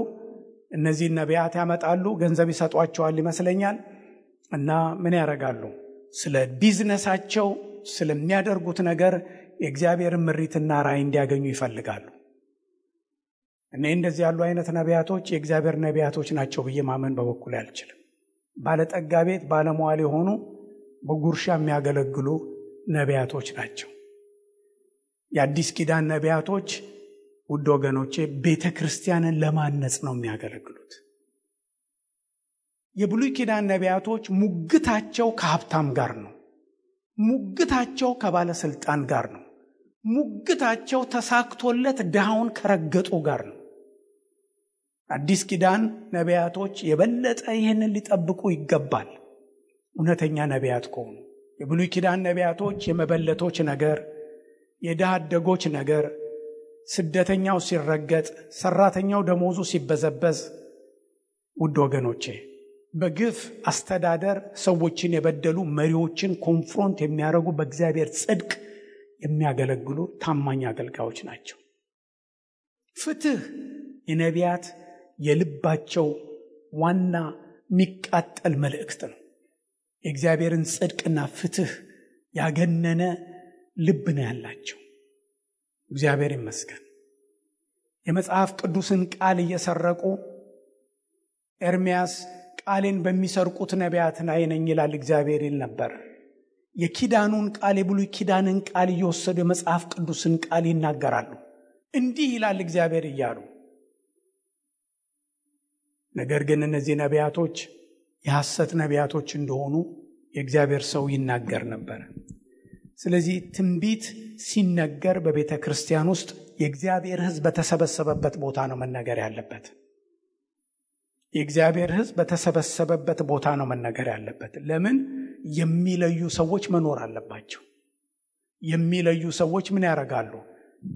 እነዚህ ነቢያት ያመጣሉ፣ ገንዘብ ይሰጧቸዋል ይመስለኛል። እና ምን ያደርጋሉ? ስለ ቢዝነሳቸው ስለሚያደርጉት ነገር የእግዚአብሔርን ምሪትና ራእይ እንዲያገኙ ይፈልጋሉ። እኔ እንደዚህ ያሉ አይነት ነቢያቶች የእግዚአብሔር ነቢያቶች ናቸው ብዬ ማመን በበኩል አልችልም። ባለጠጋ ቤት ባለሟል የሆኑ በጉርሻ የሚያገለግሉ ነቢያቶች ናቸው። የአዲስ ኪዳን ነቢያቶች ውድ ወገኖቼ ቤተ ክርስቲያንን ለማነጽ ነው የሚያገለግሉት። የብሉይ ኪዳን ነቢያቶች ሙግታቸው ከሀብታም ጋር ነው። ሙግታቸው ከባለስልጣን ጋር ነው። ሙግታቸው ተሳክቶለት ድሃውን ከረገጡ ጋር ነው። አዲስ ኪዳን ነቢያቶች የበለጠ ይህንን ሊጠብቁ ይገባል። እውነተኛ ነቢያት ከሆኑ የብሉይ ኪዳን ነቢያቶች የመበለቶች ነገር፣ የድሃ አደጎች ነገር፣ ስደተኛው ሲረገጥ፣ ሰራተኛው ደሞዙ ሲበዘበዝ፣ ውድ ወገኖቼ በግፍ አስተዳደር ሰዎችን የበደሉ መሪዎችን ኮንፍሮንት የሚያደርጉ በእግዚአብሔር ጽድቅ የሚያገለግሉ ታማኝ አገልጋዮች ናቸው። ፍትህ የነቢያት የልባቸው ዋና የሚቃጠል መልእክት ነው። የእግዚአብሔርን ጽድቅና ፍትህ ያገነነ ልብ ነው ያላቸው። እግዚአብሔር ይመስገን። የመጽሐፍ ቅዱስን ቃል እየሰረቁ ኤርምያስ ቃሌን በሚሰርቁት ነቢያት ላይ ነኝ ይላል እግዚአብሔር ይል ነበር። የኪዳኑን ቃል የብሉይ ኪዳንን ቃል እየወሰዱ የመጽሐፍ ቅዱስን ቃል ይናገራሉ። እንዲህ ይላል እግዚአብሔር እያሉ። ነገር ግን እነዚህ ነቢያቶች የሐሰት ነቢያቶች እንደሆኑ የእግዚአብሔር ሰው ይናገር ነበር። ስለዚህ ትንቢት ሲነገር በቤተ ክርስቲያን ውስጥ የእግዚአብሔር ሕዝብ በተሰበሰበበት ቦታ ነው መነገር ያለበት። የእግዚአብሔር ሕዝብ በተሰበሰበበት ቦታ ነው መነገር ያለበት። ለምን? የሚለዩ ሰዎች መኖር አለባቸው። የሚለዩ ሰዎች ምን ያደርጋሉ?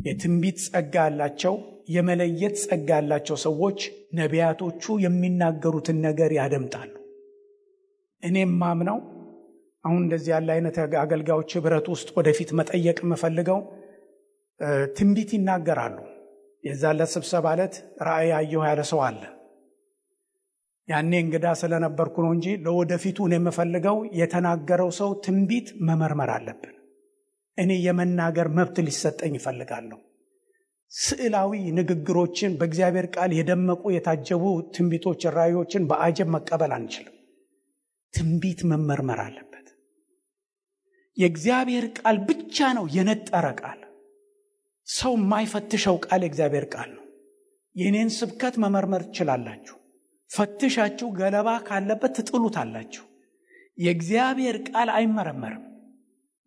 የትንቢት ጸጋ ያላቸው፣ የመለየት ጸጋ ያላቸው ሰዎች ነቢያቶቹ የሚናገሩትን ነገር ያደምጣሉ። እኔም ማምነው አሁን እንደዚህ ያለ አይነት አገልጋዮች ህብረት ውስጥ ወደፊት መጠየቅ የምፈልገው ትንቢት ይናገራሉ። የዛለ ስብሰባ ዕለት ራእይ አየሁ ያለ ሰው አለ። ያኔ እንግዳ ስለነበርኩ ነው እንጂ ለወደፊቱ እኔ የምፈልገው የተናገረው ሰው ትንቢት መመርመር አለብን። እኔ የመናገር መብት ሊሰጠኝ ይፈልጋለሁ። ስዕላዊ ንግግሮችን በእግዚአብሔር ቃል የደመቁ የታጀቡ ትንቢቶች ራእዮችን በአጀብ መቀበል አንችልም። ትንቢት መመርመር አለበት። የእግዚአብሔር ቃል ብቻ ነው የነጠረ ቃል። ሰው የማይፈትሸው ቃል የእግዚአብሔር ቃል ነው። የኔን ስብከት መመርመር ትችላላችሁ። ፈትሻችሁ ገለባ ካለበት ትጥሉታላችሁ። የእግዚአብሔር ቃል አይመረመርም።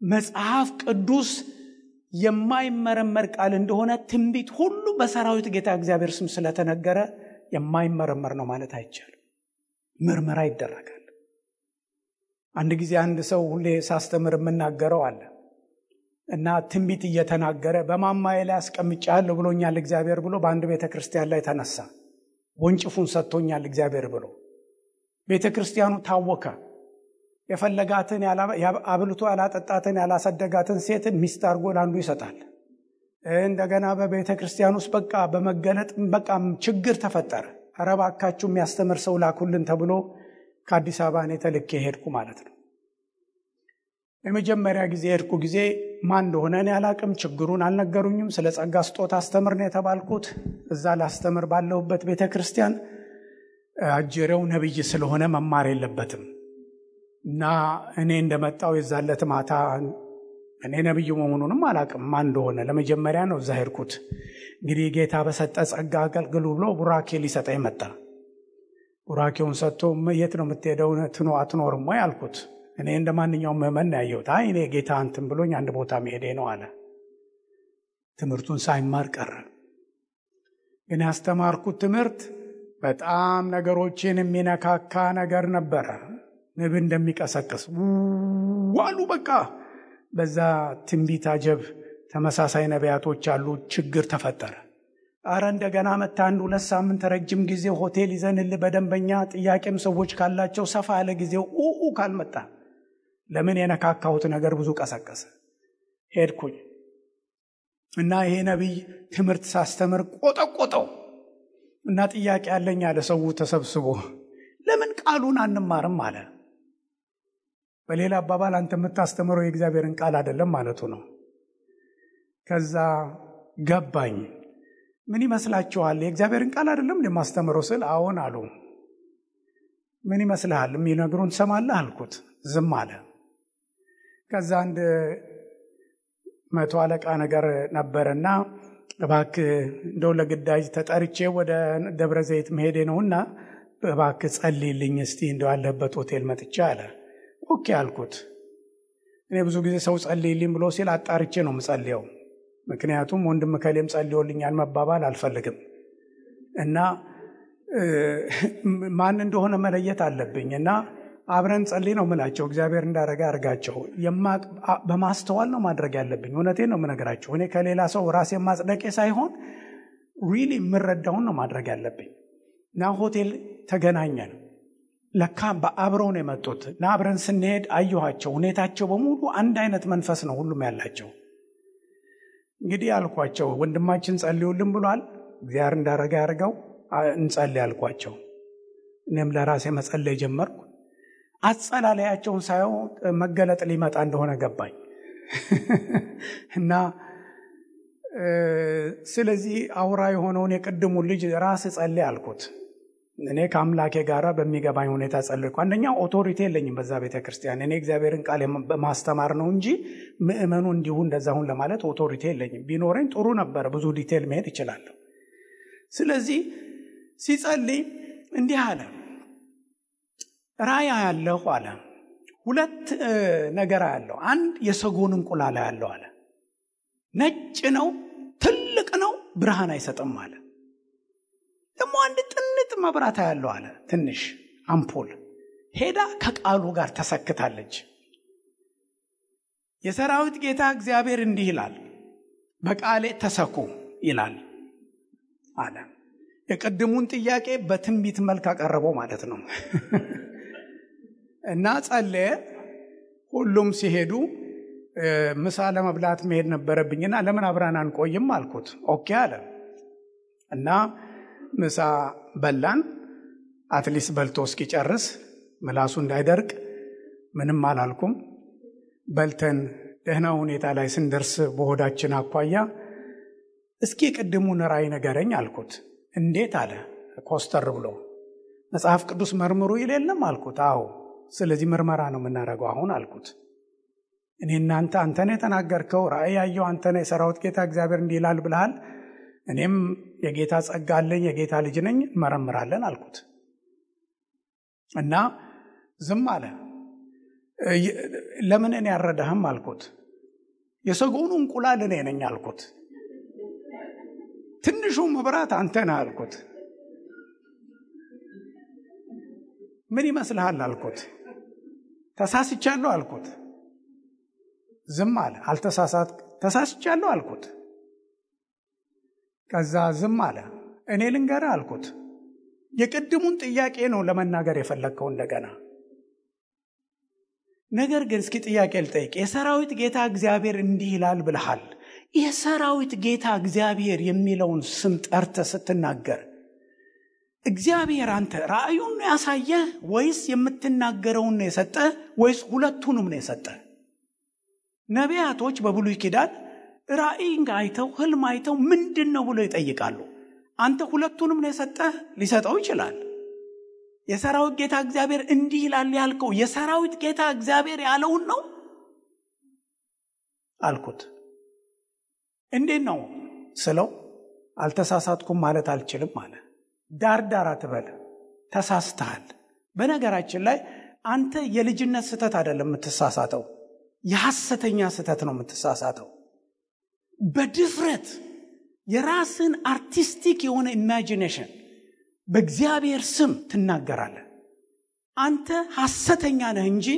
መጽሐፍ ቅዱስ የማይመረመር ቃል እንደሆነ ትንቢት ሁሉ በሰራዊት ጌታ እግዚአብሔር ስም ስለተነገረ የማይመረመር ነው ማለት አይቻልም። ምርመራ ይደረጋል። አንድ ጊዜ አንድ ሰው ሁሌ ሳስተምር የምናገረው አለ እና ትንቢት እየተናገረ በማማዬ ላይ አስቀምጫለሁ ብሎኛል እግዚአብሔር ብሎ በአንድ ቤተ ክርስቲያን ላይ ተነሳ። ወንጭፉን ሰጥቶኛል እግዚአብሔር ብሎ ቤተ ክርስቲያኑ ታወከ። የፈለጋትን አብልቶ ያላጠጣትን ያላሰደጋትን ሴት ሚስት አድርጎ ለአንዱ ይሰጣል። እንደገና በቤተ ክርስቲያን ውስጥ በቃ በመገለጥ በቃ ችግር ተፈጠረ። ኧረ እባካችሁ የሚያስተምር ሰው ላኩልን ተብሎ ከአዲስ አበባ እኔ ተልኬ ሄድኩ ማለት ነው። የመጀመሪያ ጊዜ ሄድኩ ጊዜ ማን እንደሆነ እኔ አላቅም፣ ችግሩን አልነገሩኝም። ስለ ጸጋ ስጦታ አስተምር ነው የተባልኩት። እዛ ላስተምር ባለሁበት ቤተ ክርስቲያን አጀሬው ነብይ ስለሆነ መማር የለበትም እና እኔ እንደመጣው የዛለት ማታ እኔ ነብዩ መሆኑንም አላቅም ማን እንደሆነ ለመጀመሪያ ነው እዛ ሄድኩት። እንግዲህ ጌታ በሰጠ ጸጋ አገልግሉ ብሎ ቡራኬ ሊሰጠኝ መጣ። ቡራኬውን ሰጥቶ የት ነው የምትሄደው አትኖርም ወይ አልኩት። እኔ እንደማንኛውም ምዕመን ያየሁት አይ እኔ ጌታ አንተም ብሎኝ አንድ ቦታ መሄዴ ነው አለ። ትምህርቱን ሳይማር ቀረ። ግን ያስተማርኩት ትምህርት በጣም ነገሮችን የሚነካካ ነገር ነበረ። ንብ እንደሚቀሰቅስ ዋሉ በቃ በዛ ትንቢት አጀብ ተመሳሳይ ነቢያቶች አሉ። ችግር ተፈጠረ። አረ እንደገና መጣ። 1-2 ሳምንት ረጅም ጊዜ ሆቴል ይዘንል በደንበኛ ጥያቄም ሰዎች ካላቸው ሰፋ ያለ ጊዜው ካልመጣ ለምን የነካካሁት ነገር ብዙ ቀሰቀሰ። ሄድኩኝ እና ይሄ ነቢይ ትምህርት ሳስተምር ቆጠቆጠው እና ጥያቄ ያለኝ አለ። ሰው ተሰብስቦ ለምን ቃሉን አንማርም አለ። በሌላ አባባል አንተ የምታስተምረው የእግዚአብሔርን ቃል አይደለም ማለቱ ነው። ከዛ ገባኝ። ምን ይመስላችኋል? የእግዚአብሔርን ቃል አይደለም ለማስተምረው ስል አዎን አሉ። ምን ይመስልሃል? የሚነግሩን ሰማለህ አልኩት። ዝም አለ። ከዛ አንድ 100 አለቃ ነገር ነበርና እባክህ እንደው ለግዳጅ ተጠርቼ ወደ ደብረ ዘይት መሄዴ ነውና እባክህ ጸልይልኝ እስቲ እንደው ያለበት ሆቴል መጥቼ አለ። ኦኬ አልኩት። እኔ ብዙ ጊዜ ሰው ጸልይልኝ ብሎ ሲል አጣርቼ ነው የምጸልየው። ምክንያቱም ወንድም ከሌም ጸልዮልኛል መባባል አልፈልግም እና ማን እንደሆነ መለየት አለብኝ እና አብረን ጸልይ ነው የምላቸው። እግዚአብሔር እንዳረጋ አርጋቸው በማስተዋል ነው ማድረግ ያለብኝ። እውነቴን ነው የምነግራቸው። እኔ ከሌላ ሰው ራሴን ማጽደቄ ሳይሆን ሪሊ የምረዳውን ነው ማድረግ ያለብኝ። እና ሆቴል ተገናኘን። ለካ በአብረው ነው የመጡት እና አብረን ስንሄድ አየኋቸው። ሁኔታቸው በሙሉ አንድ አይነት መንፈስ ነው ሁሉም ያላቸው። እንግዲህ አልኳቸው ወንድማችን ጸልዩልን ብሏል፣ እግዚአብሔር እንዳረጋ ያርጋው እንጸልይ አልኳቸው። እኔም ለራሴ መጸለይ ጀመርኩ። አጸላለያቸውን ሳየው መገለጥ ሊመጣ እንደሆነ ገባኝ እና ስለዚህ አውራ የሆነውን የቅድሙን ልጅ ራስ ጸልይ አልኩት። እኔ ከአምላኬ ጋራ በሚገባኝ ሁኔታ ጸልይኩ። አንደኛ ኦቶሪቲ የለኝም በዛ ቤተክርስቲያን። እኔ እግዚአብሔርን ቃል በማስተማር ነው እንጂ ምእመኑ እንዲሁ እንደዛሁን ለማለት ኦቶሪቲ የለኝም። ቢኖረኝ ጥሩ ነበር፣ ብዙ ዲቴል መሄድ ይችላለሁ። ስለዚህ ሲጸልይ እንዲህ አለ፣ ራእይ ያለው አለ 2 ነገር ያለው። አንድ የሰጎን እንቁላል ያለው አለ። ነጭ ነው፣ ትልቅ ነው፣ ብርሃን አይሰጥም አለ። ደግሞ አንድ ጥንጥ መብራት ያለው አለ፣ ትንሽ አምፖል ሄዳ ከቃሉ ጋር ተሰክታለች። የሰራዊት ጌታ እግዚአብሔር እንዲህ ይላል፣ በቃሌ ተሰኩ ይላል አለ። የቀድሙን ጥያቄ በትንቢት መልክ አቀረበው ማለት ነው። እና ጸለየ። ሁሉም ሲሄዱ ምሳ ለመብላት መሄድ ነበረብኝና ለምን አብረን አንቆይም አልኩት። ኦኬ አለ እና ምሳ በላን። አትሊስት በልቶ እስኪጨርስ ምላሱ እንዳይደርቅ ምንም አላልኩም። በልተን ደህና ሁኔታ ላይ ስንደርስ በሆዳችን አኳያ እስኪ ቅድሙን ራእይ ንገረኝ አልኩት። እንዴት አለ ኮስተር ብሎ። መጽሐፍ ቅዱስ መርምሩ ይለለም አልኩት። አዎ ስለዚህ ምርመራ ነው የምናደርገው አሁን አልኩት። እኔ እናንተ አንተነ የተናገርከው ራእይ ያየው አንተነ የሰራዊት ጌታ እግዚአብሔር እንዲህ ይላል ብለሃል። እኔም የጌታ ጸጋ አለኝ፣ የጌታ ልጅ ነኝ፣ መረምራለን አልኩት። እና ዝም አለ። ለምን እኔ ያረዳህም አልኩት። የሰጎኑ እንቁላል እኔ ነኝ አልኩት። ትንሹ መብራት አንተ ነህ አልኩት። ምን ይመስልሃል አልኩት። ተሳስቻለሁ አልኩት። ዝም አለ። አልተሳሳት ተሳስቻለሁ አልኩት። ከዛ ዝም አለ። እኔ ልንገርህ አልኩት። የቅድሙን ጥያቄ ነው ለመናገር የፈለግከው እንደገና። ነገር ግን እስኪ ጥያቄ ልጠይቅ። የሰራዊት ጌታ እግዚአብሔር እንዲህ ይላል ብለሃል። የሰራዊት ጌታ እግዚአብሔር የሚለውን ስም ጠርተህ ስትናገር እግዚአብሔር አንተ ራእዩን ነው ያሳየህ ወይስ የምትናገረውን ነው የሰጠህ ወይስ ሁለቱንም ነው የሰጠህ? ነቢያቶች በብሉይ ኪዳን ራእይን አይተው ህልም አይተው ምንድነው ብሎ ይጠይቃሉ። አንተ ሁለቱንም ነው የሰጠህ? ሊሰጠው ይችላል። የሰራዊት ጌታ እግዚአብሔር እንዲህ ይላል ያልከው የሰራዊት ጌታ እግዚአብሔር ያለውን ነው አልኩት። እንዴት ነው ስለው አልተሳሳትኩም ማለት አልችልም ማለት ዳርዳር አትበል፣ ተሳስተሃል። በነገራችን ላይ አንተ የልጅነት ስተት አይደለም የምትሳሳተው፣ የሐሰተኛ ስተት ነው የምትሳሳተው። በድፍረት የራስን አርቲስቲክ የሆነ ኢማጂኔሽን በእግዚአብሔር ስም ትናገራለህ። አንተ ሐሰተኛ ነህ እንጂ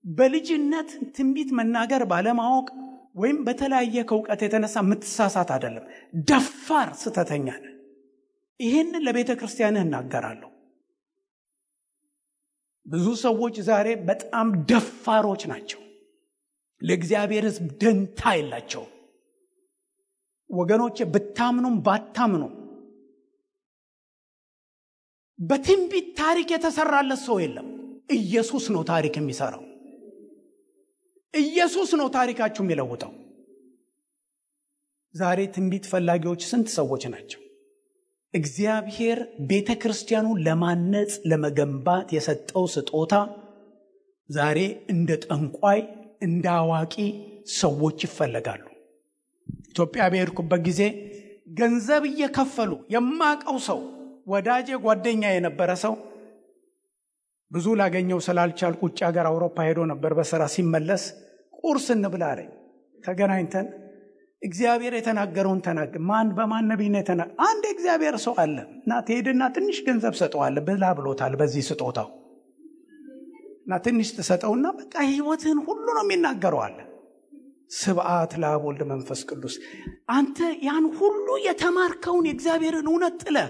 በልጅነት ትንቢት መናገር ባለማወቅ ወይም በተለያየ ከውቀት የተነሳ የምትሳሳት አይደለም፣ ደፋር ስተተኛ ነህ። ይሄንን ለቤተ ክርስቲያንህ እናገራለሁ። ብዙ ሰዎች ዛሬ በጣም ደፋሮች ናቸው። ለእግዚአብሔር ሕዝብ ደንታ የላቸው። ወገኖቼ ብታምኑም ባታምኑም በትንቢት ታሪክ የተሰራለት ሰው የለም። ኢየሱስ ነው ታሪክ የሚሰራው። ኢየሱስ ነው ታሪካችሁ የሚለውጠው። ዛሬ ትንቢት ፈላጊዎች ስንት ሰዎች ናቸው? እግዚአብሔር ቤተክርስቲያኑን ለማነጽ ለመገንባት የሰጠው ስጦታ ዛሬ እንደ ጠንቋይ እንደ አዋቂ ሰዎች ይፈለጋሉ። ኢትዮጵያ በሄድኩበት ጊዜ ገንዘብ እየከፈሉ የማቀው ሰው ወዳጄ ጓደኛ የነበረ ሰው ብዙ ላገኘው ስላልቻልኩ ውጭ ሀገር አውሮፓ ሄዶ ነበር በስራ ሲመለስ ቁርስ እንብላ አለኝ። ተገናኝተን እግዚአብሔር የተናገረውን ተናገር። ማን በማን ነብይ ነው የተናገረ? አንድ እግዚአብሔር ሰው አለ እና ትሄድና ትንሽ ገንዘብ ሰጠዋል ብላ ብሎታል። በዚህ ስጦታው እና ትንሽ ተሰጠውና በቃ ህይወትን ሁሉ ነው የሚናገረው አለ። ስብዓት ለአብ ወልድ መንፈስ ቅዱስ። አንተ ያን ሁሉ የተማርከውን የእግዚአብሔርን እውነት ጥለህ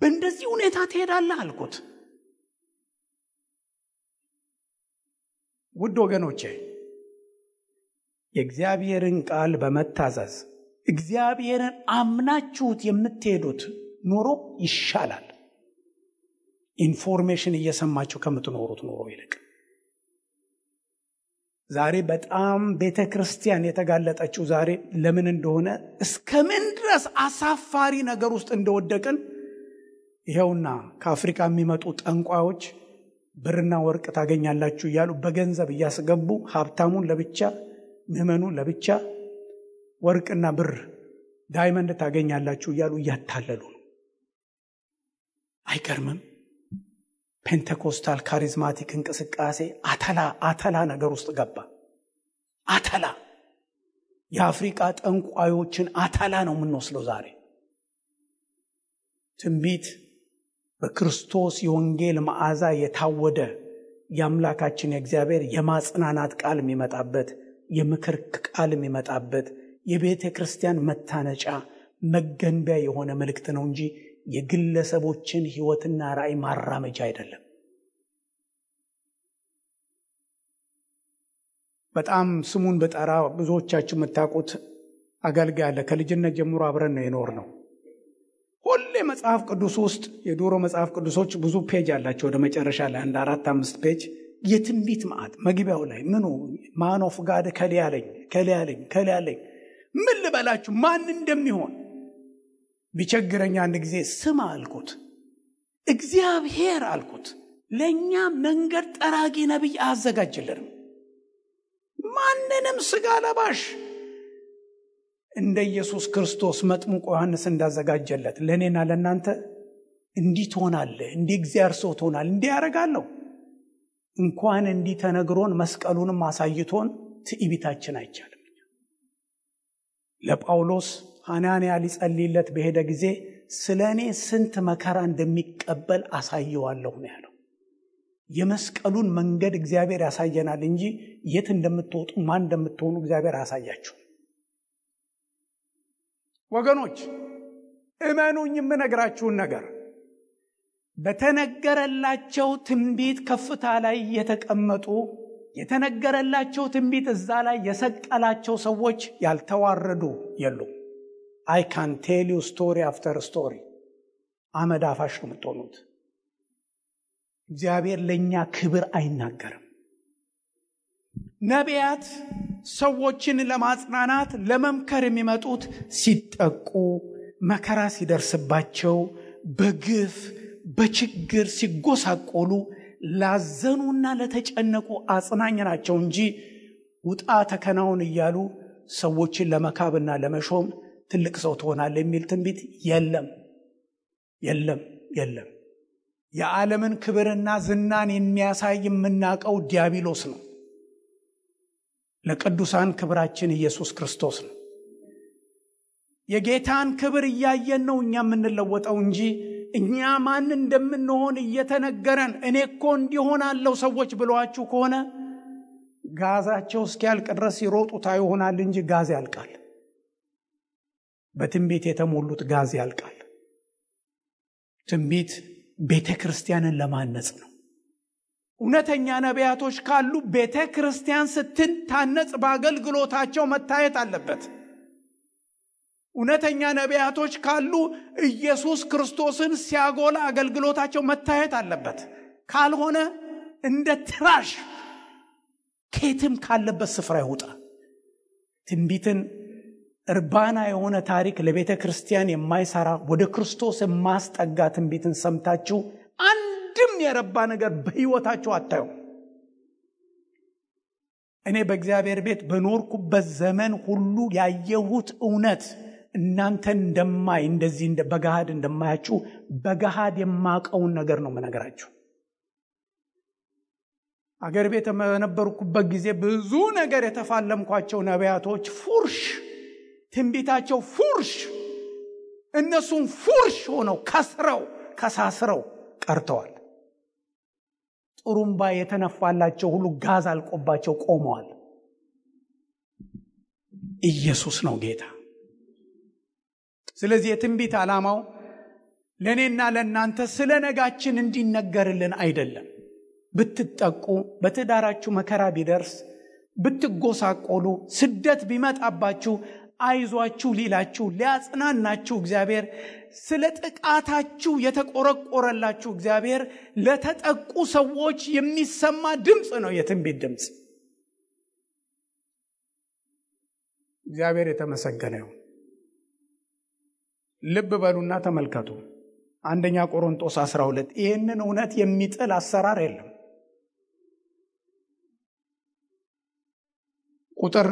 በእንደዚህ ሁኔታ ትሄዳለህ አልኩት። ውድ ወገኖቼ የእግዚአብሔርን ቃል በመታዘዝ እግዚአብሔርን አምናችሁት የምትሄዱት ኑሮ ይሻላል፣ ኢንፎርሜሽን እየሰማችሁ ከምትኖሩት ኑሮ ይልቅ። ዛሬ በጣም ቤተክርስቲያን የተጋለጠችው ዛሬ ለምን እንደሆነ እስከምን ድረስ አሳፋሪ ነገር ውስጥ እንደወደቅን ይሄውና ከአፍሪካ የሚመጡ ጠንቋዮች ብርና ወርቅ ታገኛላችሁ እያሉ በገንዘብ እያስገቡ ሀብታሙን ለብቻ ምዕመኑን ለብቻ ወርቅና ብር ዳይመንድ ታገኛላችሁ እያሉ እያታለሉ ነው። አይገርምም? ፔንቴኮስታል ካሪዝማቲክ እንቅስቃሴ አተላ ነገር ውስጥ ገባ። አተላ የአፍሪካ ጠንቋዮችን አተላ ነው የምንወስለው ዛሬ። ትንቢት በክርስቶስ የወንጌል መዓዛ የታወደ የአምላካችን የእግዚአብሔር የማጽናናት ቃል የሚመጣበት፣ የምክር ቃል የሚመጣበት፣ የቤተ ክርስቲያን መታነጫ መገንቢያ የሆነ መልእክት ነው እንጂ የግለሰቦችን ህይወትና ራእይ ማራመጃ አይደለም። በጣም ስሙን በጠራ ብዙዎቻችሁ የምታውቁት አገልጋይ አለ። ከልጅነት ጀምሮ አብረን ነው የኖርነው። ሁሌ መጽሐፍ ቅዱስ ውስጥ የዶሮ መጽሐፍ ቅዱሶች ብዙ ፔጅ አላቸው። ወደ መጨረሻ ላይ 4-5 ፔጅ የትንቢት ማዕት መግቢያው ላይ ምኑ ማን ኦፍ ጋድ ከሊያለኝ ምን ልበላችሁ ማን እንደሚሆን ቢቸግረኛ አንድ ጊዜ ስማ አልኩት። እግዚአብሔር አልኩት ለኛ መንገድ ጠራጊ ነብይ አዘጋጅልን። ማንንም ስጋ ለባሽ እንደ ኢየሱስ ክርስቶስ መጥምቁ ዮሐንስ እንዳዘጋጀለት ለኔና ለናንተ እንዲህ ትሆናለህ፣ እንዲህ እግዚአብሔር ሰው ትሆናለህ፣ እንዲህ ያደርጋለሁ። እንኳን እንዲህ ተነግሮን መስቀሉንም አሳይቶን ትዕቢታችን አይቻልም። ለጳውሎስ ሐናንያ ሊጸልይለት በሄደ ጊዜ ስለኔ ስንት መከራ እንደሚቀበል አሳየዋለሁ ነው ያለው። የመስቀሉን መንገድ እግዚአብሔር ያሳየናል እንጂ የት እንደምትወጡ ማን እንደምትሆኑ እግዚአብሔር ያሳያችሁ። ወገኖች እመኑኝ የምነግራችሁን ነገር በተነገረላቸው ትንቢት ከፍታ ላይ የተቀመጡ የተነገረላቸው ትንቢት እዛ ላይ የሰቀላቸው ሰዎች ያልተዋረዱ የሉም። I can tell you story after story። አመድ አፋሽ ነው የምትሆኑት። እግዚአብሔር ለኛ ክብር አይናገርም። ነቢያት ሰዎችን ለማጽናናት ለመምከር የሚመጡት ሲጠቁ፣ መከራ ሲደርስባቸው፣ በግፍ በችግር ሲጎሳቆሉ ላዘኑና ለተጨነቁ አጽናኝ ናቸው እንጂ ውጣ ተከናውን እያሉ ሰዎችን ለመካብና ለመሾም ትልቅ ሰው ትሆናለህ የሚል ትንቢት የለም። የዓለምን ክብርና ዝናን የሚያሳይ የምናውቀው ዲያብሎስ ነው። ለቅዱሳን ክብራችን ኢየሱስ ክርስቶስ ነው። የጌታን ክብር እያየን ነው እኛ የምንለወጠው እንጂ እኛ ማን እንደምንሆን እየተነገረን እኔ እኮ እንዲሆናለሁ ሰዎች ብለዋችሁ ከሆነ ጋዛቸው እስኪያልቅ ድረስ ይሮጡታ ይሆናል እንጂ ጋዝ ያልቃል። በትንቢት የተሞሉት ጋዝ ያልቃል። ትንቢት ቤተክርስቲያንን ለማነጽ ነው። እውነተኛ ነቢያቶች ካሉ ቤተክርስቲያን ስትታነጽ በአገልግሎታቸው መታየት አለበት። እውነተኛ ነቢያቶች ካሉ ኢየሱስ ክርስቶስን ሲያጎላ አገልግሎታቸው መታየት አለበት። ካልሆነ እንደ ትራሽ ከየትም ካለበት ስፍራ ይወጣ። ትንቢትን እርባና የሆነ ታሪክ ለቤተ ክርስቲያን የማይሰራ ወደ ክርስቶስ የማስጠጋ ትንቢትን ሰምታችሁ አንድም የረባ ነገር በሕይወታችሁ አታዩ። እኔ በእግዚአብሔር ቤት በኖርኩበት ዘመን ሁሉ ያየሁት እውነት እናንተን እንደማይ እንደዚህ በገሃድ እንደማያችሁ በገሃድ የማቀውን ነገር ነው መነገራችሁ። አገር ቤት በነበርኩበት ጊዜ ብዙ ነገር የተፋለምኳቸው ነቢያቶች ፉርሽ፣ ትንቢታቸው ፉርሽ፣ እነሱም ፉርሽ ሆነው ከሳስረው ቀርተዋል። ጥሩምባ የተነፋላቸው ሁሉ ጋዝ አልቆባቸው ቆመዋል። ኢየሱስ ነው ጌታ። ስለዚህ የትንቢት ዓላማው ለእኔና ለእናንተ ስለ ነጋችን እንዲነገርልን አይደለም። ብትጠቁ፣ በትዳራችሁ መከራ ቢደርስ፣ ብትጎሳቆሉ፣ ስደት ቢመጣባችሁ አይዟችሁ ሊላችሁ ሊያጽናናችሁ እግዚአብሔር ስለ ጥቃታችሁ የተቆረቆረላችሁ እግዚአብሔር ለተጠቁ ሰዎች የሚሰማ ድምፅ ነው የትንቢት ድምፅ። እግዚአብሔር የተመሰገነ ይሁን። ልብ በሉና ተመልከቱ። አንደኛ ቆሮንቶስ 12 ይህንን እውነት የሚጥል አሰራር የለም። ቁጥር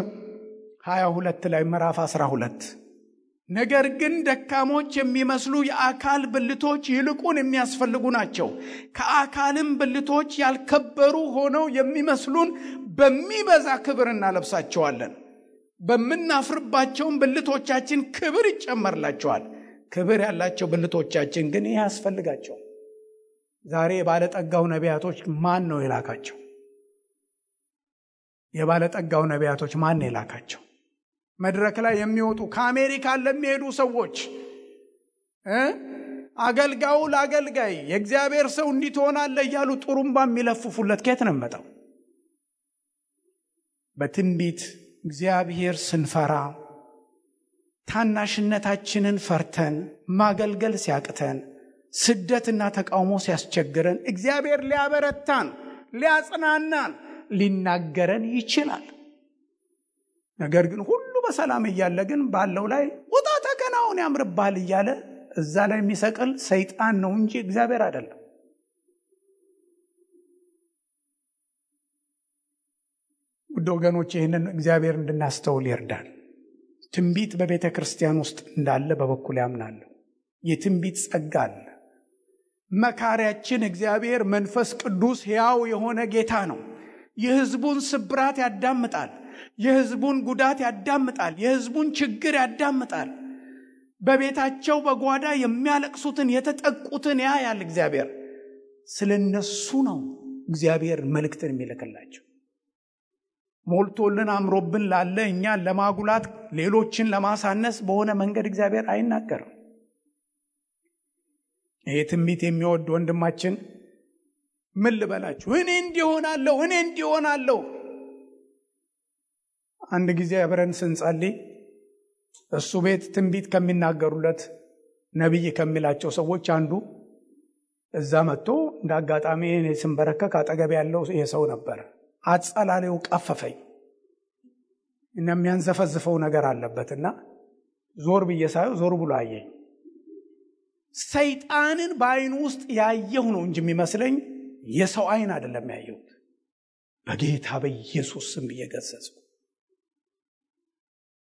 22 ላይ ምዕራፍ 12 ነገር ግን ደካሞች የሚመስሉ የአካል ብልቶች ይልቁን የሚያስፈልጉ ናቸው። ከአካልም ብልቶች ያልከበሩ ሆነው የሚመስሉን በሚበዛ ክብር እናለብሳቸዋለን። በምናፍርባቸውም ብልቶቻችን ክብር ይጨመርላቸዋል። ክብር ያላቸው ብልቶቻችን ግን ይህ ያስፈልጋቸው። ዛሬ የባለጠጋው ነቢያቶች ማን ነው የላካቸው? የባለጠጋው ነቢያቶች ማን ነው የላካቸው? መድረክ ላይ የሚወጡ ከአሜሪካ ለሚሄዱ ሰዎች አገልጋዩ ለአገልጋይ የእግዚአብሔር ሰው እንዲትሆናለህ እያሉ ጥሩምባ የሚለፍፉለት ከየት ነው መጣው? በትንቢት እግዚአብሔር ስንፈራ ታናሽነታችንን ፈርተን ማገልገል ሲያቅተን ስደትና ተቃውሞ ሲያስቸግረን እግዚአብሔር ሊያበረታን ሊያጽናናን ሊናገረን ይችላል። ነገር ግን ሁሉ በሰላም እያለ ግን ባለው ላይ ውጣ ተከናውን ያምርባል እያለ እዛ ላይ የሚሰቅል ሰይጣን ነው እንጂ እግዚአብሔር አይደለም። ውድ ወገኖች ይህንን እግዚአብሔር እንድናስተውል ይርዳል። ትንቢት በቤተ ክርስቲያን ውስጥ እንዳለ በበኩል ያምናለሁ። የትንቢት ጸጋ አለ። መካሪያችን እግዚአብሔር መንፈስ ቅዱስ ሕያው የሆነ ጌታ ነው። የሕዝቡን ስብራት ያዳምጣል። የሕዝቡን ጉዳት ያዳምጣል። የሕዝቡን ችግር ያዳምጣል። በቤታቸው በጓዳ የሚያለቅሱትን የተጠቁትን ያያል። እግዚአብሔር ስለነሱ ነው እግዚአብሔር መልእክትን የሚልክላቸው። ሞልቶልን አምሮብን ላለ እኛን ለማጉላት ሌሎችን ለማሳነስ በሆነ መንገድ እግዚአብሔር አይናገርም። ይሄ ትንቢት የሚወድ ወንድማችን ምን ልበላችሁ እኔ እንዲሆናለሁ አንድ ጊዜ አብረን ስንጸልይ እሱ ቤት ትንቢት ከሚናገሩለት ነብይ ከሚላቸው ሰዎች አንዱ እዛ መጥቶ እንዳጋጣሚ እኔ ስንበረከክ አጠገብ ያለው የሰው ነበር። አጸላሌው ቀፈፈኝ እና የሚያንዘፈዝፈው ነገር አለበትና ዞር ብዬ ሳየው ዞር ብሎ አየኝ። ሰይጣንን በአይኑ ውስጥ ያየው ነው እንጂ የሚመስለኝ የሰው አይን አይደለም ያየሁት። በጌታ በኢየሱስ ስም እየገሰጽኩ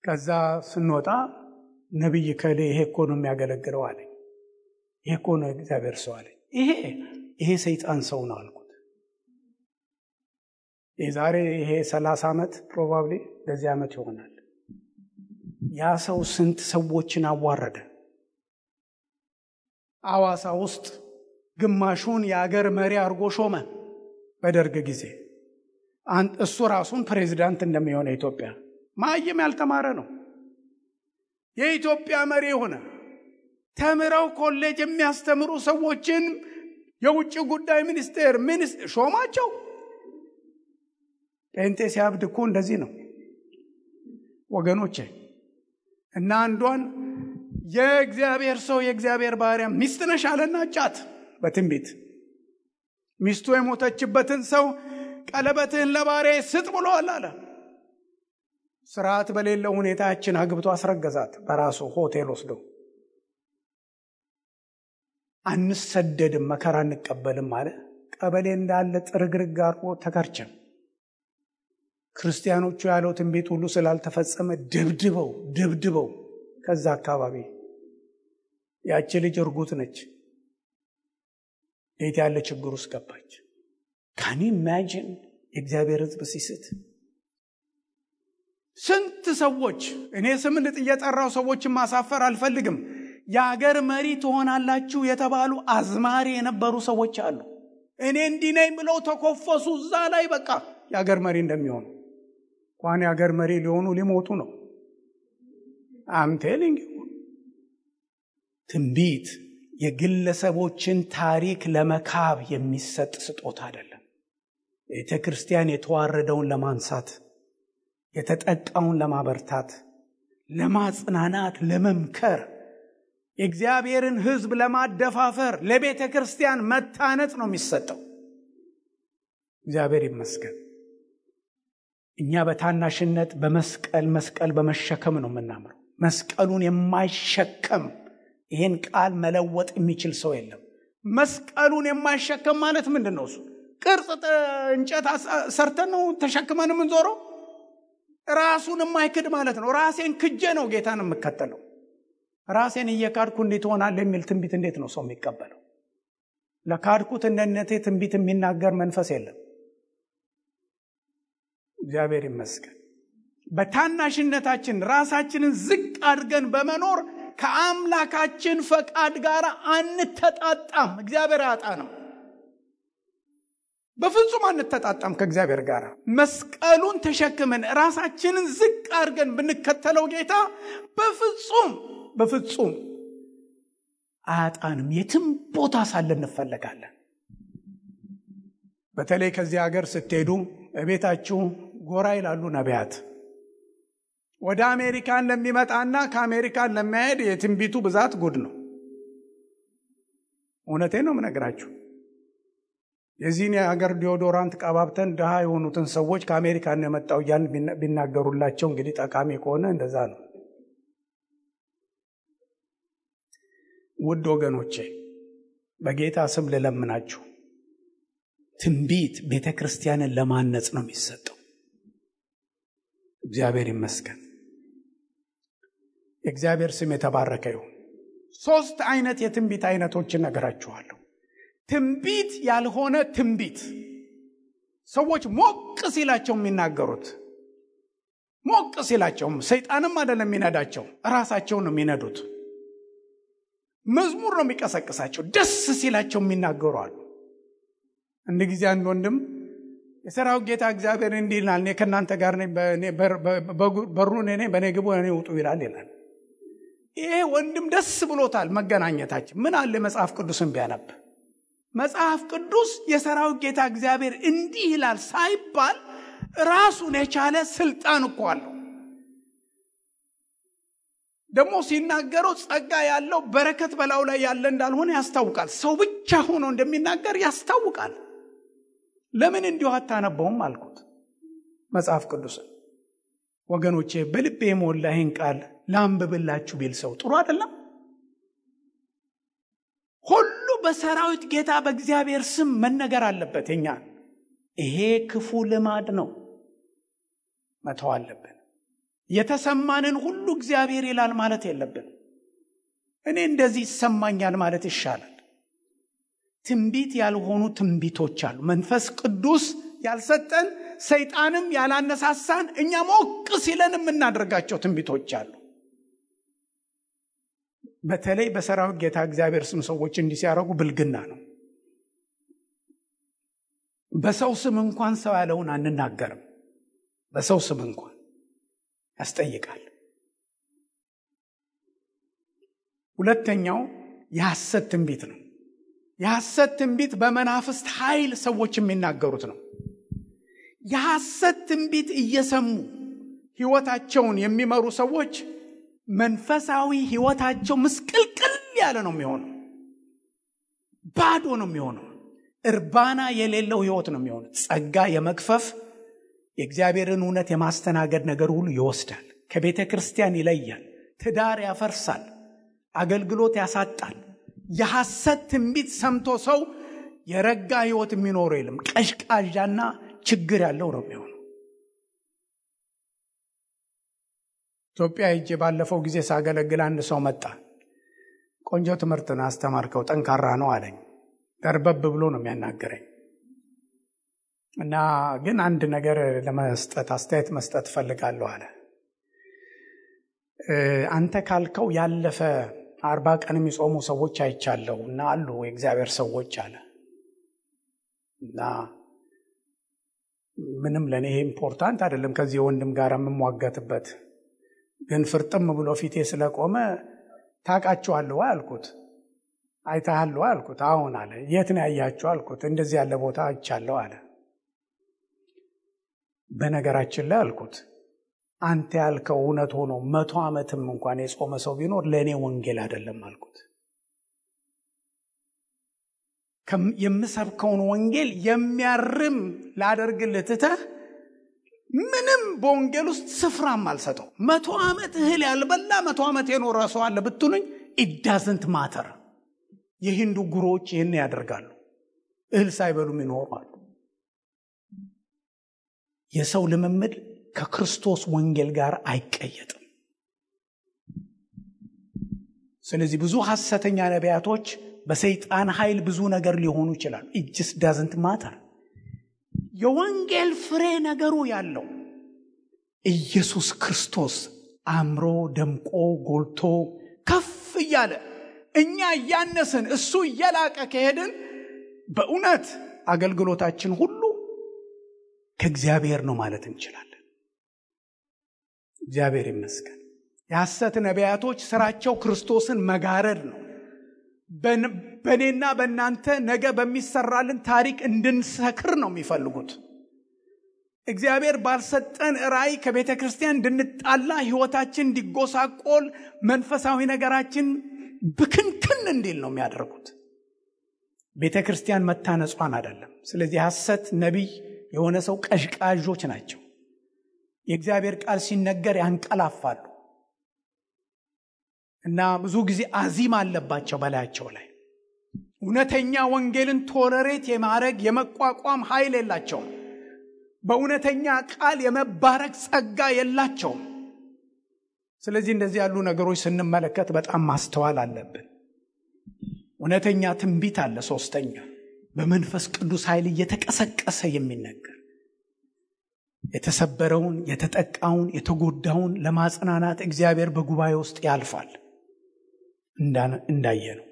ከዛ ስንወጣ ነብይ ከሌ ይሄ እኮ ነው የሚያገለግለው አለኝ። ይሄ እኮ ነው እግዚአብሔር ሰው አለኝ። ይሄ ሰይጣን ሰው ነው አልኩት። የዛሬ ይሄ 30 ዓመት ፕሮባብሊ ለዚህ ዓመት ይሆናል። ያ ሰው ስንት ሰዎችን አዋረደ። አዋሳ ውስጥ ግማሹን የአገር መሪ አድርጎ ሾመ በደርግ ጊዜ። እሱ ራሱን ፕሬዝዳንት እንደሚሆነ ኢትዮጵያ ማየም ያልተማረ ነው። የኢትዮጵያ መሪ ሆነ። ተምረው ኮሌጅ የሚያስተምሩ ሰዎችን የውጭ ጉዳይ ሚኒስቴር ሾማቸው። ጴንጤ ሲያብድ እኮ እንደዚህ ነው ወገኖቼ። እና አንዷን የእግዚአብሔር ሰው የእግዚአብሔር ባሪያ ሚስት ነሽ አለና ጫት በትንቢት ሚስቱ የሞተችበትን ሰው ቀለበትህን ለባሪያዬ ስጥ ብሎአል አለ። ስርዓት በሌለው ሁኔታችን አግብቶ አስረገዛት በራሱ ሆቴል ወስዶ። አንሰደድም መከራ እንቀበልም አለ። ቀበሌ እንዳለ ጥርግርግ አርቆ ተከርቸም። ክርስቲያኖቹ ያለው ትንቢት ሁሉ ስላልተፈጸመ ደብድበው ከዛ አካባቢ ያቺ ልጅ እርጉት ነች። እንዴት ያለ ችግር ውስጥ ገባች። ካን ዩ ኢማጂን የእግዚአብሔር ሕዝብ ሲስት። ስንት ሰዎች እኔ ስም እየጠራው ሰዎችን ማሳፈር አልፈልግም። የሀገር መሪ ትሆናላችሁ የተባሉ አዝማሪ የነበሩ ሰዎች አሉ። እኔ እንዲህ ነኝ ብለው ተኮፈሱ እዛ ላይ በቃ የሀገር መሪ እንደሚሆኑ። እንኳን የሀገር መሪ ሊሆኑ ሊሞቱ ነው። አም ቴሊንግ ትንቢት የግለሰቦችን ታሪክ ለመካብ የሚሰጥ ስጦታ አይደለም። ቤተ ክርስቲያን የተዋረደውን ለማንሳት፣ የተጠቃውን ለማበርታት፣ ለማጽናናት፣ ለመምከር፣ የእግዚአብሔርን ሕዝብ ለማደፋፈር፣ ለቤተ ክርስቲያን መታነጽ ነው የሚሰጠው። እግዚአብሔር ይመስገን። እኛ በታናሽነት መስቀል በመሸከም ነው የምናምረው። መስቀሉን የማይሸከም ይሄን ቃል መለወጥ የሚችል ሰው የለም። መስቀሉን የማይሸከም ማለት ምንድነው? እሱ ቅርጽ እንጨት ሰርተን ነው ተሸክመን የምንዞረው። ራሱን የማይክድ ማለት ነው። ራሴን ክጄ ነው ጌታን የምከተለው። ራሴን እየካድኩ እንዴት ሆናለሁ የሚል ትንቢት እንዴት ነው ሰው የሚቀበለው? ለካድኩት እንደነቴ ትንቢት የሚናገር መንፈስ የለም። እግዚአብሔር ይመስገን። በታናሽነታችን ራሳችንን ዝቅ አድርገን በመኖር ከአምላካችን ፈቃድ ጋር አንተጣጣም። እግዚአብሔር ያጣነው በፍጹም አንተጣጣም ከእግዚአብሔር ጋር። መስቀሉን ተሸክመን ራሳችንን ዝቅ አድርገን ብንከተለው ጌታ በፍጹም አያጣንም። የትም ቦታ ሳለን እንፈለጋለን። በተለይ ከዚህ ሀገር ስትሄዱ ቤታችሁ ጎራ ይላሉ ነቢያት። ወደ አሜሪካን ለሚመጣና ከአሜሪካን ለሚሄድ የትንቢቱ ብዛት ጉድ ነው። እውነቴን ነው የምነግራችሁ። የዚህን የሀገር ዲዮዶራንት ቀባብተን ድሃ የሆኑትን ሰዎች ከአሜሪካን የመጣው እያልን ቢናገሩላቸው እንግዲህ ጠቃሚ ከሆነ እንደዛ ነው። ውድ ወገኖቼ በጌታ ስም ልለምናችሁ፣ ትንቢት ቤተ ክርስቲያንን ለማነጽ ነው የሚሰጠው። እግዚአብሔር ይመስገን። የእግዚአብሔር ስም የተባረከ ይሁን። 3 አይነት የትንቢት አይነቶችን ነገራችኋለሁ። ትንቢት ያልሆነ ትንቢት፣ ሰዎች ሞቅ ሲላቸው የሚናገሩት። ሞቅ ሲላቸው ሰይጣንም አይደለም የሚነዳቸው፣ ራሳቸው ነው የሚነዱት። መዝሙር ነው የሚቀሰቅሳቸው። ደስ ሲላቸው የሚናገሩ አሉ። አንድ ጊዜ አንድ ወንድም የሰራዊት ጌታ እግዚአብሔር እንዲህ ይላል፣ እኔ ከእናንተ ጋር ነኝ፣ በሩን እኔ በእኔ ግቡ እኔ ውጡ ይላል። ይሄ ወንድም ደስ ብሎታል መገናኘታችን። ምን አለ መጽሐፍ ቅዱስን ቢያነብ። መጽሐፍ ቅዱስ የሰራዊት ጌታ እግዚአብሔር እንዲህ ይላል ሳይባል ራሱን የቻለ ስልጣን እኮ አለው። ደግሞ ሲናገረው ጸጋ ያለው በረከት በላዩ ላይ ያለ እንዳልሆነ ያስታውቃል። ሰው ብቻ ሆኖ እንደሚናገር ያስታውቃል። ለምን እንዲሁ አታነበውም አልኩት መጽሐፍ ቅዱስን። ወገኖቼ በልቤ የሞላ ይህን ቃል ላንብብላችሁ ቢል ሰው ጥሩ አይደለም? ሁሉ በሰራዊት ጌታ በእግዚአብሔር ስም መነገር አለበት። የኛ ይሄ ክፉ ልማድ ነው፣ መተው አለብን። የተሰማንን ሁሉ እግዚአብሔር ይላል ማለት የለብን። እኔ እንደዚህ ይሰማኛል ማለት ይሻላል። ትንቢት ያልሆኑ ትንቢቶች አሉ። መንፈስ ቅዱስ ያልሰጠን ሰይጣንም ያላነሳሳን እኛ ሞቅ ሲለን የምናደርጋቸው ትንቢቶች አሉ። በተለይ በሰራዊት ጌታ እግዚአብሔር ስም ሰዎች እንዲህ ሲያደርጉ ብልግና ነው። በሰው ስም እንኳን ሰው ያለውን አንናገርም። በሰው ስም እንኳን ያስጠይቃል። ሁለተኛው የሐሰት ትንቢት ነው። የሐሰት ትንቢት በመናፍስት ኃይል ሰዎች የሚናገሩት ነው። የሐሰት ትንቢት እየሰሙ ሕይወታቸውን የሚመሩ ሰዎች መንፈሳዊ ሕይወታቸው ምስቅልቅል ያለ ነው የሚሆነው። ባዶ ነው የሚሆነው። እርባና የሌለው ሕይወት ነው የሚሆነው። ጸጋ የመግፈፍ የእግዚአብሔርን እውነት የማስተናገድ ነገር ሁሉ ይወስዳል። ከቤተ ክርስቲያን ይለያል። ትዳር ያፈርሳል። አገልግሎት ያሳጣል። የሐሰት ትንቢት ሰምቶ ሰው የረጋ ሕይወት የሚኖረው የለም። ቀሽቃዣና ችግር ያለው ነው የሚሆነው። ኢትዮጵያ ሄጄ ባለፈው ጊዜ ሳገለግል አንድ ሰው መጣ። ቆንጆ ትምህርትን አስተማርከው፣ ጠንካራ ነው አለኝ። ደርበብ ብሎ ነው የሚያናገረኝ እና ግን አንድ ነገር ለመስጠት አስተያየት መስጠት ፈልጋለሁ አለ። አንተ ካልከው ያለፈ 40 ቀን የሚጾሙ ሰዎች አይቻለሁ እና አሉ የእግዚአብሔር ሰዎች አለ እና ምንም ለኔ ይሄ ኢምፖርታንት አይደለም ከዚህ ወንድም ጋር የምሟገትበት፣ ግን ፍርጥም ብሎ ፊቴ ስለቆመ ታውቃቸዋለሁ አልኩት። አይተሃለሁ አልኩት። አሁን አለ። የት ነው ያያችሁ አልኩት። እንደዚህ ያለ ቦታ አይቻለሁ አለ። በነገራችን ላይ አልኩት አንተ ያልከው እውነት ሆኖ 100 ዓመትም እንኳን የጾመ ሰው ቢኖር ለኔ ወንጌል አይደለም አልኩት። የምሰብከውን ወንጌል የሚያርም ላደርግልህ ትተህ ምንም በወንጌል ውስጥ ስፍራም አልሰጠው። 100 ዓመት እህል ያልበላ 100 ዓመት የኖረ ሰው አለ ብትሉኝ it doesn't matter። የሂንዱ ጉሮዎች ይህን ያደርጋሉ። እህል ሳይበሉም ይኖራሉ። የሰው ልምምድ ከክርስቶስ ወንጌል ጋር አይቀየጥም። ስለዚህ ብዙ ሐሰተኛ ነቢያቶች በሰይጣን ኃይል ብዙ ነገር ሊሆኑ ይችላሉ። it just doesn't matter። የወንጌል ፍሬ ነገሩ ያለው ኢየሱስ ክርስቶስ አምሮ ደምቆ ጎልቶ ከፍ እያለ እኛ ያነስን እሱ እየላቀ ከሄድን በእውነት አገልግሎታችን ሁሉ ከእግዚአብሔር ነው ማለት እንችላለን። እግዚአብሔር ይመስገን። የሐሰት ነቢያቶች ስራቸው ክርስቶስን መጋረድ ነው። በእኔና በእናንተ ነገ በሚሰራልን ታሪክ እንድንሰክር ነው የሚፈልጉት። እግዚአብሔር ባልሰጠን ራእይ ከቤተ ክርስቲያን እንድንጣላ፣ ሕይወታችን እንዲጎሳቆል፣ መንፈሳዊ ነገራችን ብክንክን እንዲል ነው የሚያደርጉት። ቤተ ክርስቲያን መታነጿን አይደለም። ስለዚህ ሐሰት ነቢይ የሆነ ሰው ቀዥቃዦች ናቸው። የእግዚአብሔር ቃል ሲነገር ያንቀላፋሉ እና ብዙ ጊዜ አዚም አለባቸው በላያቸው ላይ። እውነተኛ ወንጌልን ቶለሬት የማድረግ የመቋቋም ኃይል የላቸውም። በእውነተኛ ቃል የመባረክ ጸጋ የላቸውም። ስለዚህ እንደዚህ ያሉ ነገሮች ስንመለከት በጣም ማስተዋል አለብን። እውነተኛ ትንቢት አለ። ሶስተኛ በመንፈስ ቅዱስ ኃይል እየተቀሰቀሰ የሚነገር የተሰበረውን፣ የተጠቃውን፣ የተጎዳውን ለማጽናናት እግዚአብሔር በጉባኤ ውስጥ ያልፋል። እንዳየነው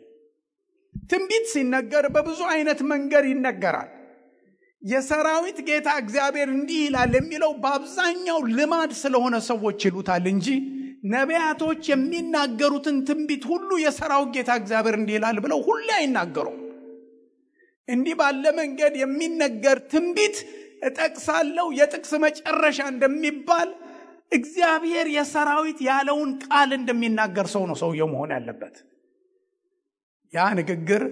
ትንቢት ሲነገር በብዙ አይነት መንገድ ይነገራል። የሰራዊት ጌታ እግዚአብሔር እንዲህ ይላል የሚለው በአብዛኛው ልማድ ስለሆነ ሰዎች ይሉታል እንጂ ነቢያቶች የሚናገሩትን ትንቢት ሁሉ የሰራዊት ጌታ እግዚአብሔር እንዲህ ይላል ብለው ሁሉ አይናገሩም። እንዲህ ባለ መንገድ የሚነገር ትንቢት እጠቅሳለሁ የጥቅስ መጨረሻ እንደሚባል እግዚአብሔር የሰራዊት ያለውን ቃል እንደሚናገር ሰው ነው ሰውየው መሆን ያለበት። ያ ንግግር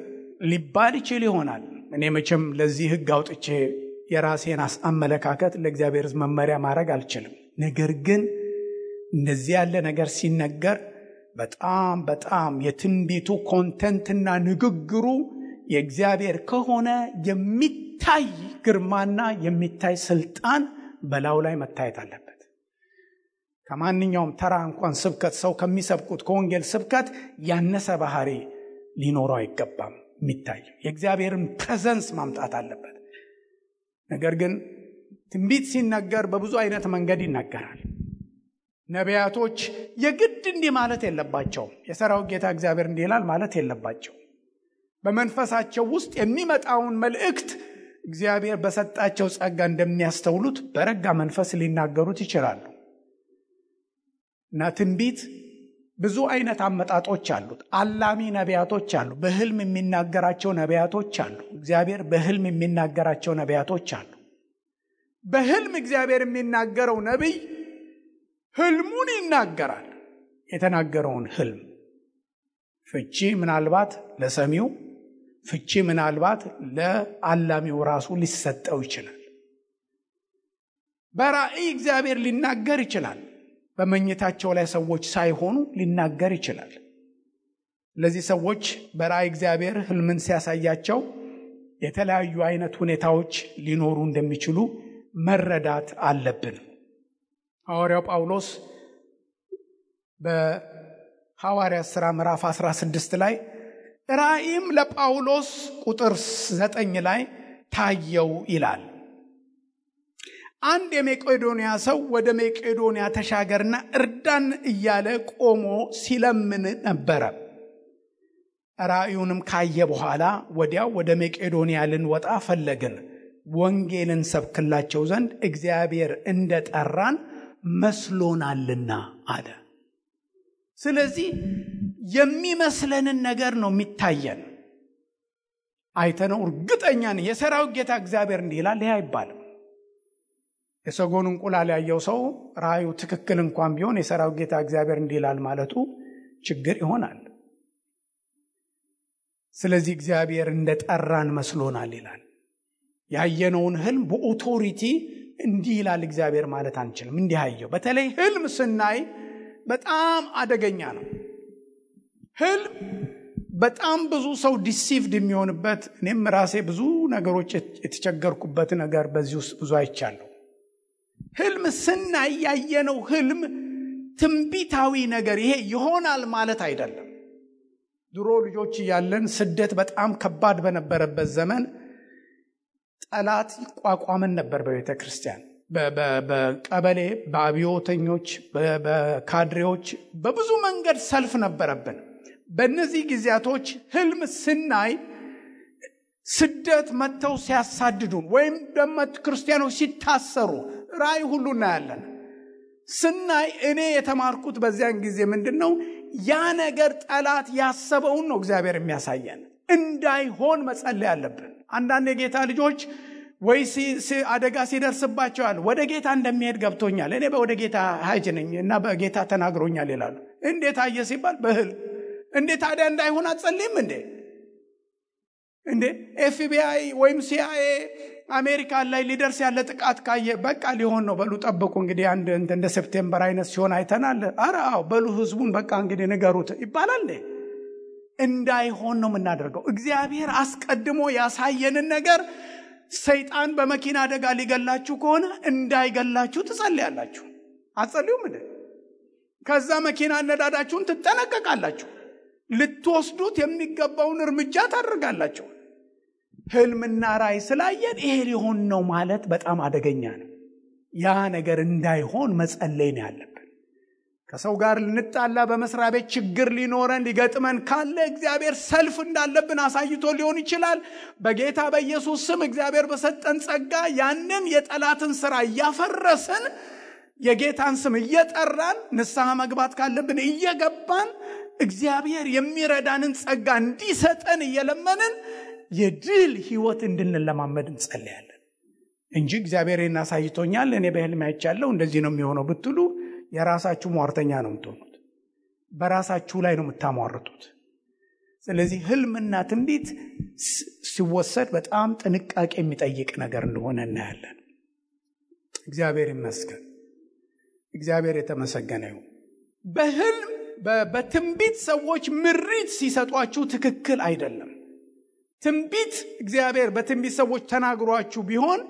ሊባል ይችል ይሆናል። እኔ መቼም ለዚህ ሕግ አውጥቼ የራሴን አመለካከት ለእግዚአብሔር መመሪያ ማድረግ አልችልም። ነገር ግን እንደዚህ ያለ ነገር ሲነገር በጣም የትንቢቱ ኮንተንትና ንግግሩ የእግዚአብሔር ከሆነ የሚታይ ግርማና የሚታይ ስልጣን በላዩ ላይ መታየት አለበት። ከማንኛውም ተራ እንኳን ስብከት ሰው ከሚሰብኩት ከወንጌል ስብከት ያነሰ ባህሪ ሊኖረው አይገባም። የሚታይ የእግዚአብሔርን ፕሬዘንስ ማምጣት አለበት። ነገር ግን ትንቢት ሲነገር በብዙ አይነት መንገድ ይነገራል። ነቢያቶች የግድ እንዲህ ማለት የለባቸውም። የሰራዊት ጌታ እግዚአብሔር እንዲህ ይላል ማለት የለባቸው። በመንፈሳቸው ውስጥ የሚመጣውን መልእክት እግዚአብሔር በሰጣቸው ጸጋ እንደሚያስተውሉት በረጋ መንፈስ ሊናገሩት ይችላሉ። እና ትንቢት ብዙ አይነት አመጣጦች አሉት። አላሚ ነቢያቶች አሉ። በህልም የሚናገራቸው ነቢያቶች አሉ። እግዚአብሔር በህልም የሚናገራቸው ነቢያቶች አሉ። በህልም እግዚአብሔር የሚናገረው ነቢይ ህልሙን ይናገራል። የተናገረውን ህልም ፍቺ ምናልባት ለሰሚው፣ ፍቺ ምናልባት ለአላሚው ራሱ ሊሰጠው ይችላል። በራእይ እግዚአብሔር ሊናገር ይችላል። በመኝታቸው ላይ ሰዎች ሳይሆኑ ሊናገር ይችላል። ለዚህ ሰዎች በራእይ እግዚአብሔር ህልምን ሲያሳያቸው የተለያዩ አይነት ሁኔታዎች ሊኖሩ እንደሚችሉ መረዳት አለብን። ሐዋርያው ጳውሎስ በሐዋርያት ሥራ ምዕራፍ 16 ላይ ራእይም ለጳውሎስ ቁጥር 9 ላይ ታየው ይላል። አንድ የመቄዶንያ ሰው ወደ መቄዶንያ ተሻገርና እርዳን እያለ ቆሞ ሲለምን ነበረ። ራእዩንም ካየ በኋላ ወዲያው ወደ መቄዶንያ ልንወጣ ፈለግን፣ ወንጌልን ሰብክላቸው ዘንድ እግዚአብሔር እንደጠራን መስሎናልና አለ። ስለዚህ የሚመስለንን ነገር ነው የሚታየን። አይተነው እርግጠኛ ነን የሰራዊት ጌታ እግዚአብሔር እንዲህ ይላል ይሄ አይባልም። የሰጎን እንቁላል ያየው ሰው ራእዩ ትክክል እንኳን ቢሆን የሰራዊት ጌታ እግዚአብሔር እንዲህ ይላል ማለቱ ችግር ይሆናል። ስለዚህ እግዚአብሔር እንደጠራን መስሎናል ይላል። ያየነውን ህልም በኦቶሪቲ እንዲህ ይላል እግዚአብሔር ማለት አንችልም። እንዲህ አየው። በተለይ ህልም ስናይ በጣም አደገኛ ነው። ህልም በጣም ብዙ ሰው ዲሲቭድ የሚሆንበት፣ እኔም ራሴ ብዙ ነገሮች የተቸገርኩበት ነገር በዚህ ውስጥ ብዙ አይቻለሁ። ህልም ስናይ ያየነው ህልም ትንቢታዊ ነገር ይሄ ይሆናል ማለት አይደለም። ድሮ ልጆች እያለን ስደት በጣም ከባድ በነበረበት ዘመን ጠላት ይቋቋመን ነበር። በቤተ ክርስቲያን፣ በቀበሌ፣ በአብዮተኞች፣ በካድሬዎች በብዙ መንገድ ሰልፍ ነበረብን። በእነዚህ ጊዜያቶች ህልም ስናይ ስደት መጥተው ሲያሳድዱን ወይም ደግሞ ክርስቲያኖች ሲታሰሩ ራእይ ሁሉ እናያለን። ስናይ እኔ የተማርኩት በዚያን ጊዜ ምንድነው ያ ነገር ጠላት ያሰበውን ነው እግዚአብሔር የሚያሳየን። እንዳይሆን መጸለይ አለብን። አንዳንድ የጌታ ልጆች ወይ አደጋ ሲደርስባቸዋል ወደ ጌታ እንደሚሄድ ገብቶኛል፣ እኔ ወደ ጌታ ሀጅ ነኝ እና በጌታ ተናግሮኛል ይላሉ። እንዴት አየ ሲባል በህልም። እንዴት ታዲያ እንዳይሆን አትጸልይም እንዴ? ኤፍቢአይ ወይም ሲአይኤ አሜሪካ ላይ ሊደርስ ያለ ጥቃት ካየ በቃ ሊሆን ነው በሉ ጠብቁ እንግዲህ አንድ እንደ ሴፕቴምበር አይነት ሲሆን አይተናል። አራው በሉ ህዝቡን በቃ እንግዲህ ንገሩት ይባላል። እንዳይሆን ነው የምናደርገው። እግዚአብሔር አስቀድሞ ያሳየንን ነገር ሰይጣን በመኪና አደጋ ሊገላችሁ ከሆነ እንዳይገላችሁ ትጸልያላችሁ። አትጸልዩም እንዴ? ከዛ መኪና ነዳዳችሁን ትጠነቀቃላችሁ። ልትወስዱት የሚገባውን እርምጃ ታደርጋላችሁ። ህልምና ራእይ ስላየን ይሄ ሊሆን ነው ማለት በጣም አደገኛ ነው። ያ ነገር እንዳይሆን መጸለይ ነው ያለብን። ከሰው ጋር ልንጣላ፣ በመስሪያ ቤት ችግር ሊኖረን ሊገጥመን ካለ እግዚአብሔር ሰልፍ እንዳለብን አሳይቶ ሊሆን ይችላል። በጌታ በኢየሱስ ስም እግዚአብሔር በሰጠን ጸጋ ያንን የጠላትን ሥራ እያፈረስን የጌታን ስም እየጠራን ንስሐ መግባት ካለብን እየገባን እግዚአብሔር የሚረዳንን ጸጋ እንዲሰጠን እየለመንን የድል ህይወት እንድንለማመድ እንጸልያለን። እንጂ እግዚአብሔርን አሳይቶኛል እኔ በህልም አይቻለሁ እንደዚህ ነው የሚሆነው ብትሉ የራሳችሁ ሟርተኛ ነው የምትሆኑት። በራሳችሁ ላይ ነው የምታሟርቱት። ስለዚህ ህልምና ትንቢት ሲወሰድ በጣም ጥንቃቄ የሚጠይቅ ነገር እንደሆነ እናያለን። እግዚአብሔር ይመስገን። እግዚአብሔር የተመሰገነ ይሁን። በህልም በትንቢት ሰዎች ምሪት ሲሰጧችሁ ትክክል አይደለም። ትንቢት እግዚአብሔር በትንቢት ሰዎች ተናግሯችሁ ቢሆን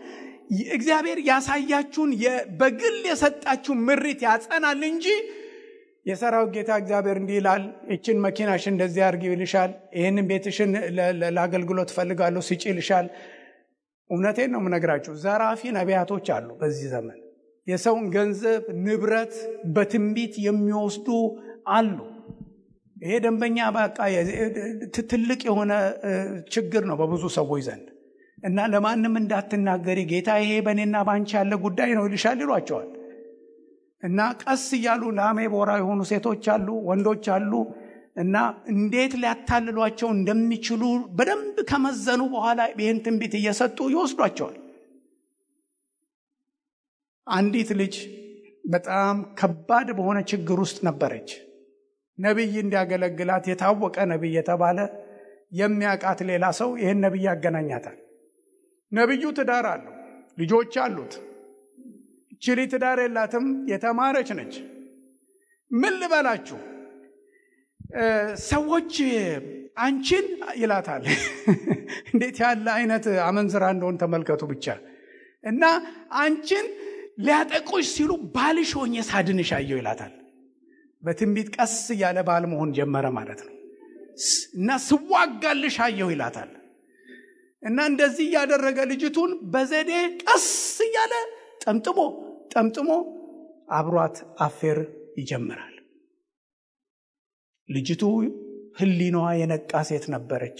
እግዚአብሔር ያሳያችሁን በግል የሰጣችሁ ምሪት ያጸናል እንጂ የሰራዊት ጌታ እግዚአብሔር እንዲህ ይላል እቺን መኪናሽ እንደዚህ አድርጊ ይልሻል፣ ይሄንን ቤትሽን ለአገልግሎት ፈልጋለሁ ሲጪ ይልሻል። እውነቴን ነው የምነግራችሁ፣ ዘራፊ ነቢያቶች አሉ በዚህ ዘመን። የሰውን ገንዘብ ንብረት በትንቢት የሚወስዱ አሉ። ይሄ ደንበኛ በቃ ትልቅ የሆነ ችግር ነው በብዙ ሰዎች ዘንድ እና ለማንም እንዳትናገሪ ጌታ ይሄ በእኔና ባንቺ ያለ ጉዳይ ነው ይልሻል ይሏቸዋል። እና ቀስ እያሉ ላሜ ቦራ የሆኑ ሴቶች አሉ፣ ወንዶች አሉ። እና እንዴት ሊያታልሏቸው እንደሚችሉ በደንብ ከመዘኑ በኋላ ይህን ትንቢት እየሰጡ ይወስዷቸዋል። አንዲት ልጅ በጣም ከባድ በሆነ ችግር ውስጥ ነበረች። ነብይ እንዲያገለግላት የታወቀ ነብይ የተባለ የሚያውቃት ሌላ ሰው ይህን ነብይ ያገናኛታል። ነብዩ ትዳር አለው፣ ልጆች አሉት። ችሊ ትዳር የላትም፣ የተማረች ነች። ምን ልበላችሁ ሰዎች አንቺን ይላታል። እንዴት ያለ አይነት አመንዝራ እንደሆነ ተመልከቱ ብቻ። እና አንቺን ሊያጠቁሽ ሲሉ ባልሽ ሆኜ ሳድንሽ አየሁ ይላታል። በትንቢት ቀስ እያለ ባል መሆን ጀመረ ማለት ነው። እና ስዋጋልሽ አየሁ ይላታል። እና እንደዚህ ያደረገ ልጅቱን በዘዴ ቀስ እያለ ጠምጥሞ አብሯት አፌር ይጀምራል። ልጅቱ ህሊናዋ የነቃ ሴት ነበረች።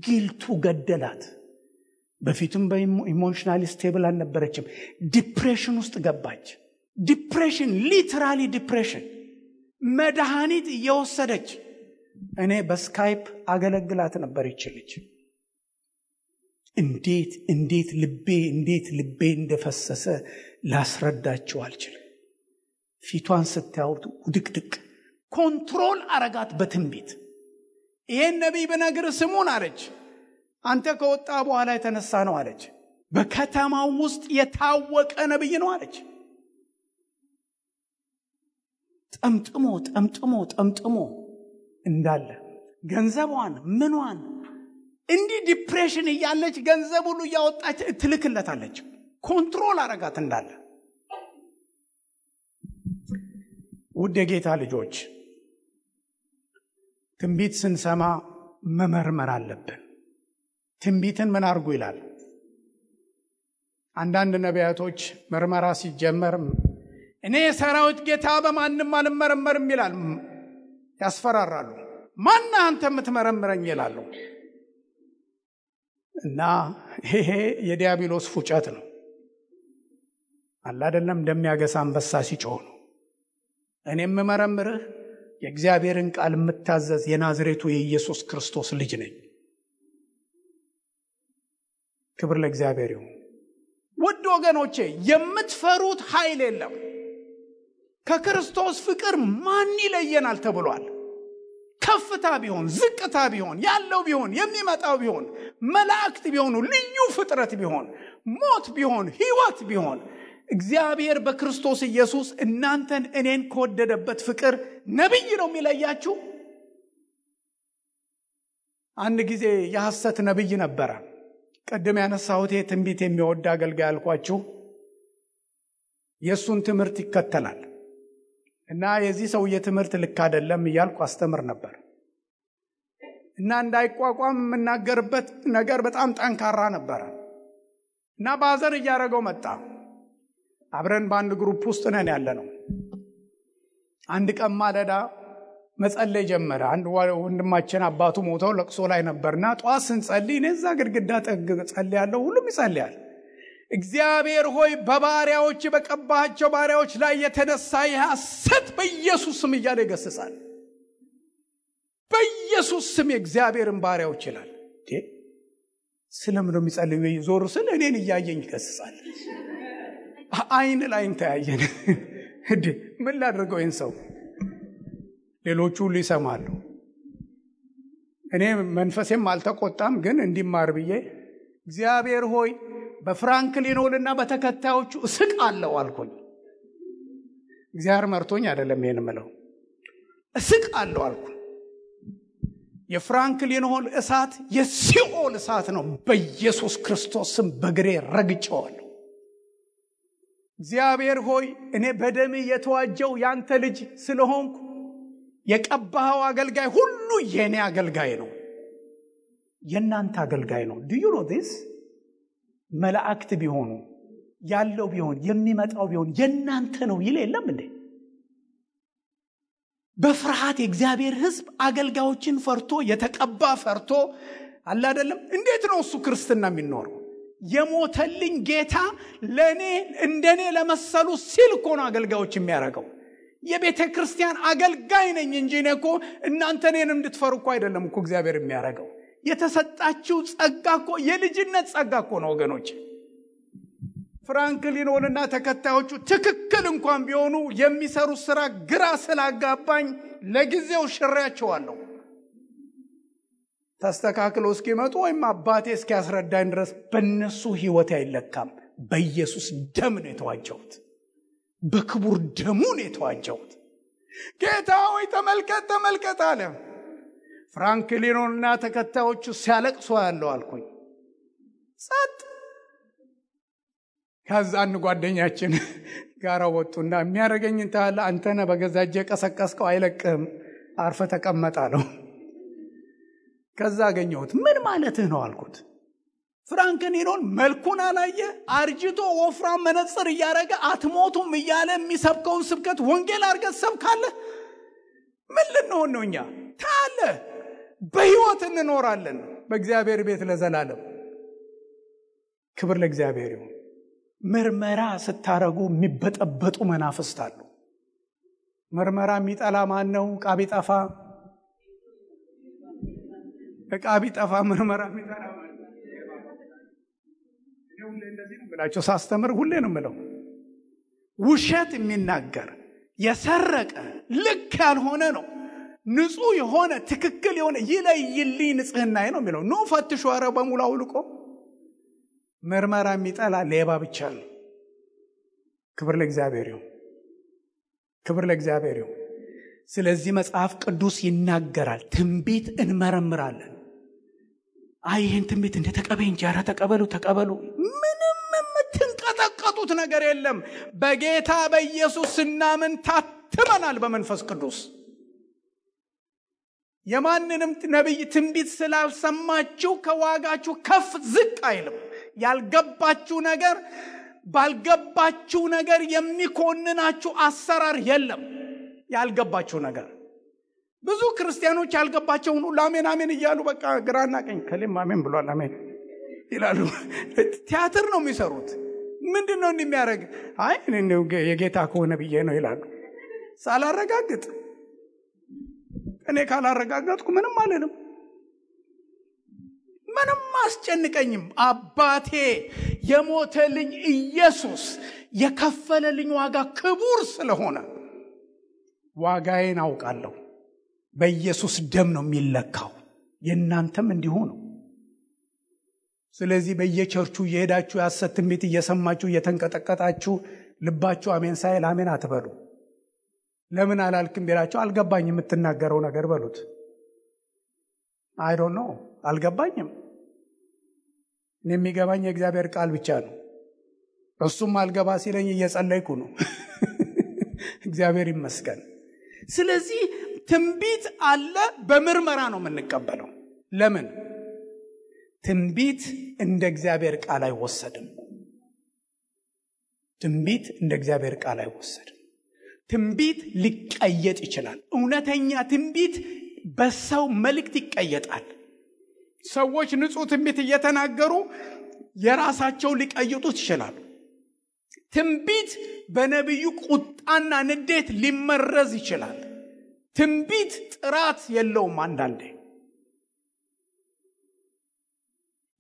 ጊልቱ ገደላት። በፊቱም በኢሞሽናሊ ስቴብል አልነበረችም። ዲፕሬሽን ውስጥ ገባች። ዲፕሬሽን፣ ሊተራሊ ዲፕሬሽን። መድኃኒት እየወሰደች እኔ በስካይፕ አገለግላት ነበር ይችልች። እንዴት ልቤ እንደፈሰሰ ላስረዳችሁ አልችልም። ፊቷን ስታዩት ውድቅድቅ። ኮንትሮል አረጋት በትንቢት። ይሄን ነቢይ በነገር ስሙን አለች። አንተ ከወጣ በኋላ የተነሳ ነው አለች። በከተማው ውስጥ የታወቀ ነቢይ ነው አለች። ጠምጥሞ እንዳለ ገንዘቧን ምኗን እንዲህ ዲፕሬሽን እያለች ገንዘብ ሁሉ እያወጣች ትልክለታለች። ኮንትሮል አረጋት እንዳለ። ውድ የጌታ ልጆች ትንቢት ስንሰማ መመርመር አለብን። ትንቢትን ምን አርጉ ይላል? አንዳንድ ነቢያቶች ምርመራ ሲጀመር እኔ የሰራዊት ጌታ በማንም አልመረመርም ይላል። ያስፈራራሉ። ማን አንተ የምትመረምረኝ ይላሉ። እና ይሄ የዲያብሎስ ፉጨት ነው። አይደለም እንደሚያገሳ አንበሳ ሲጮህ ነው። እኔ የምመረምርህ የእግዚአብሔርን ቃል የምታዘዝ የናዝሬቱ የኢየሱስ ክርስቶስ ልጅ ነኝ። ክብር ለእግዚአብሔር ይሁን። ውድ ወገኖቼ የምትፈሩት ኃይል የለም። ከክርስቶስ ፍቅር ማን ይለየናል ተብሏል። ከፍታ ቢሆን ዝቅታ ቢሆን ያለው ቢሆን የሚመጣው ቢሆን መላእክት ቢሆኑ ልዩ ፍጥረት ቢሆን ሞት ቢሆን ሕይወት ቢሆን እግዚአብሔር በክርስቶስ ኢየሱስ እናንተን እኔን ከወደደበት ፍቅር ነብይ ነው የሚለያችሁ። አንድ ጊዜ የሐሰት ነብይ ነበረ። ቀደም ያነሳሁት ትንቢት የሚወድ አገልጋይ አልኳችሁ። የሱን ትምህርት ይከተላል እና የዚህ ሰውዬ ትምህርት ልክ አይደለም እያልኩ አስተምር ነበር። እና እንዳይቋቋም የምናገርበት ነገር በጣም ጠንካራ ነበር። እና ባዘር እያደረገው መጣ። አብረን በአንድ ግሩፕ ውስጥ ነን ያለነው። አንድ ቀን ማለዳ መጸለይ ጀመረ። አንድ ወንድማችን አባቱ ሞተው ለቅሶ ላይ ነበርና ጧት ስንጸልይ እኔ እዛ ግድግዳ ጠግ ጸልያለሁ። ሁሉም ይጸልያል። እግዚአብሔር ሆይ በባሪያዎች በቀባቸው ባሪያዎች ላይ የተነሳ የሐሰት በኢየሱስ ስም እያለ ይገስጻል። በኢየሱስ ስም የእግዚአብሔርን ባሪያዎች ይላል። ስለምን ነው የሚጸልዩ? ዞር ስል እኔን እያየኝ ይከስሳል። አይን ላይን ተያየን። እንዴ ምን ላድርገው ይህን ሰው? ሌሎቹ ሁሉ ይሰማሉ። እኔ መንፈሴም አልተቆጣም፣ ግን እንዲማር ብዬ እግዚአብሔር ሆይ በፍራንክሊን ሆልና በተከታዮቹ እስቃለሁ አልኩኝ። እግዚአብሔር መርቶኝ አይደለም ይሄን ምለው፣ እስቃለሁ አልኩኝ። የፍራንክሊን ሆል እሳት የሲኦል እሳት ነው። በኢየሱስ ክርስቶስ ስም በግሬ ረግጬዋለሁ። እግዚአብሔር ሆይ እኔ በደም የተዋጀው ያንተ ልጅ ስለሆንኩ የቀባኸው አገልጋይ ሁሉ የኔ አገልጋይ ነው፣ የናንተ አገልጋይ ነው። do you know this? መላእክት ቢሆኑ ያለው ቢሆን የሚመጣው ቢሆን የናንተ ነው ይል የለም እንዴ? በፍርሃት የእግዚአብሔር ሕዝብ አገልጋዮችን ፈርቶ የተቀባ ፈርቶ አለ አይደለም። እንዴት ነው እሱ ክርስትና የሚኖረው? የሞተልኝ ጌታ ለኔ እንደኔ ለመሰሉ ሲል እኮ ነው አገልጋዮች የሚያረጋው። የቤተ ክርስቲያን አገልጋይ ነኝ እንጂ እኔ እኮ እናንተ እኔን እንድትፈሩ እኮ አይደለም እኮ እግዚአብሔር የሚያረጋው። የተሰጣችሁ ጸጋ እኮ የልጅነት ጸጋ እኮ ነው ወገኖች። ፍራንክሊን ሆልና ተከታዮቹ ትክክል እንኳን ቢሆኑ የሚሰሩት ስራ ግራ ስላጋባኝ ለጊዜው ሽሬያቸዋለሁ። ተስተካክለው እስኪመጡ ወይም አባቴ እስኪያስረዳኝ ድረስ በእነሱ ህይወት አይለካም። በኢየሱስ ደም ነው የተዋጀሁት፣ በክቡር ደሙ ነው የተዋጀሁት። ጌታ ሆይ ተመልከት አለ። ፍራንክሊን ሆልና ተከታዮቹ ሲያለቅሱ ያለው አልኩኝ። ጸጥ። ከዛን ጓደኛችን ጋር ወጡና የሚያረጋኝ እንታለ አንተነ በገዛጀ ቀሰቀስከው አይለቅም፣ አርፈ ተቀመጣለሁ። ከዛ አገኘሁት። ምን ማለትህ ነው አልኩት። ፍራንክሊን መልኩን አላየ፣ አርጅቶ ወፍራም መነጽር እያረገ አትሞቱም እያለ የሚሰብከውን ስብከት ወንጌል አርገህ ሰብካለህ? ምን ልንሆን ነው እኛ? ታለ በህይወት እንኖራለን በእግዚአብሔር ቤት ለዘላለም። ክብር ለእግዚአብሔር ይሁን። ምርመራ ስታረጉ የሚበጠበጡ መናፍስት አሉ። ምርመራ የሚጠላ ማን ነው? ዕቃ ቢጠፋ ምርመራ የሚጠላ ማን ነው? ሁሌ እንደዚህ ነው ብላችሁ ሳስተምር ሁሌ ነው የምለው፣ ውሸት የሚናገር የሰረቀ ልክ ያልሆነ ነው። ንጹህ የሆነ ትክክል የሆነ ይለይልኝ ንጽህናዬ ነው የሚለው። ኖ ፈትሹ፣ ኧረ በሙሉ አውልቆ። ምርመራ የሚጠላ ሌባ ብቻ ነው። ክብር ለእግዚአብሔር ይሁን፣ ክብር ለእግዚአብሔር ይሁን። ስለዚህ መጽሐፍ ቅዱስ ይናገራል፣ ትንቢት እንመረምራለን። ይህን ትንቢት እንደ ተቀበይ እንጂ ኧረ ተቀበሉ። ምንም የምትንቀጠቀጡት ነገር የለም። በጌታ በኢየሱስ ስናምን ታትመናል በመንፈስ ቅዱስ። የማንንም ነቢይ ትንቢት ስላልሰማችሁ ከዋጋችሁ ከፍ ዝቅ አይልም። ያልገባችሁ ነገር ባልገባችሁ ነገር የሚኮንናችሁ አሰራር የለም። ያልገባችሁ ነገር ብዙ ክርስቲያኖች ያልገባቸውን ሁሉ አሜን አሜን እያሉ በቃ ግራና ቀኝ ከሌም አሜን ብሏል አሜን ይላሉ። ቲያትር ነው የሚሰሩት። ምንድነው እንደሚያደርግ? የጌታ ከሆነ ብዬ ነው ይላሉ። ሳላረጋግጥ እኔ ካላረጋጋጥኩ ምንም አልልም፣ ምንም አስጨንቀኝም። አባቴ የሞተልኝ ኢየሱስ የከፈለልኝ ዋጋ ክቡር ስለሆነ ዋጋዬን አውቃለሁ። በኢየሱስ ደም ነው የሚለካው። የእናንተም እንዲሁ ነው። ስለዚህ በየቸርቹ እየሄዳችሁ የሐሰት ትንቢት እየሰማችሁ እየተንቀጠቀጣችሁ ልባችሁ አሜን ሳይል አሜን አትበሉ። ለምን አላልክም ቢላችሁ አልገባኝም የምትናገረው ነገር በሉት። አይ ዶንት ኖ አልገባኝም። እኔ የሚገባኝ የእግዚአብሔር ቃል ብቻ ነው። እሱም አልገባ ሲለኝ እየጸለይኩ ነው። እግዚአብሔር ይመስገን። ስለዚህ ትንቢት አለ፣ በምርመራ ነው የምንቀበለው። ለምን? ትንቢት እንደ እግዚአብሔር ቃል አይወሰድም። ትንቢት እንደ እግዚአብሔር ቃል አይወሰድም። ትንቢት ሊቀየጥ ይችላል። እውነተኛ ትንቢት በሰው መልእክት ይቀየጣል። ሰዎች ንጹህ ትንቢት እየተናገሩ የራሳቸው ሊቀይጡት ይችላል። ትንቢት በነቢዩ ቁጣና ንዴት ሊመረዝ ይችላል። ትንቢት ጥራት የለውም። አንዳንዴ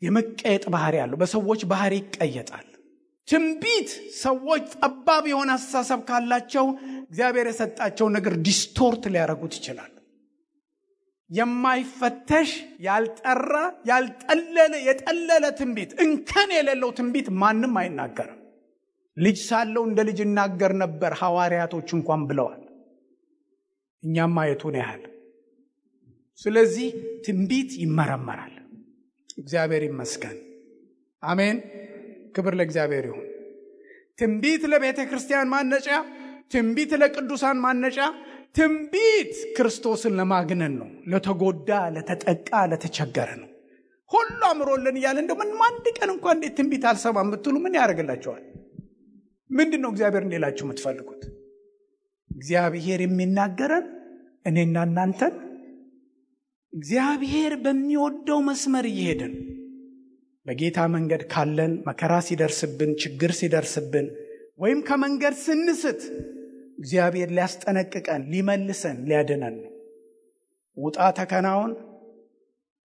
የመቀየጥ ባህሪ ያለው በሰዎች ባህሪ ይቀየጣል። ትንቢት ሰዎች ጠባብ የሆነ አስተሳሰብ ካላቸው እግዚአብሔር የሰጣቸው ነገር ዲስቶርት ሊያደርጉት ይችላል። የማይፈተሽ ያልጠራ የጠለለ ትንቢት እንከን የሌለው ትንቢት ማንም አይናገርም። ልጅ ሳለው እንደ ልጅ እናገር ነበር ሐዋርያቶች እንኳን ብለዋል። እኛም ማየቱን ያህል። ስለዚህ ትንቢት ይመረመራል። እግዚአብሔር ይመስገን። አሜን። ክብር ለእግዚአብሔር ይሁን። ትንቢት ለቤተ ክርስቲያን ማነጫ፣ ትንቢት ለቅዱሳን ማነጫ፣ ትንቢት ክርስቶስን ለማግነን ነው። ለተጎዳ፣ ለተጠቃ፣ ለተቸገረ ነው። ሁሉ አምሮልን እያለ እንደው ምን አንድ ቀን እንኳን እንዴት ትንቢት አልሰማም ብትሉ ምን ያደርግላችኋል? ምንድነው እግዚአብሔር እንዲላችሁ የምትፈልጉት? እግዚአብሔር የሚናገረን እኔና እናንተን እግዚአብሔር በሚወደው መስመር እየሄድን በጌታ መንገድ ካለን መከራ ሲደርስብን፣ ችግር ሲደርስብን ወይም ከመንገድ ስንስት እግዚአብሔር ሊያስጠነቅቀን፣ ሊመልሰን፣ ሊያድነን ነው። ውጣ ተከናውን፣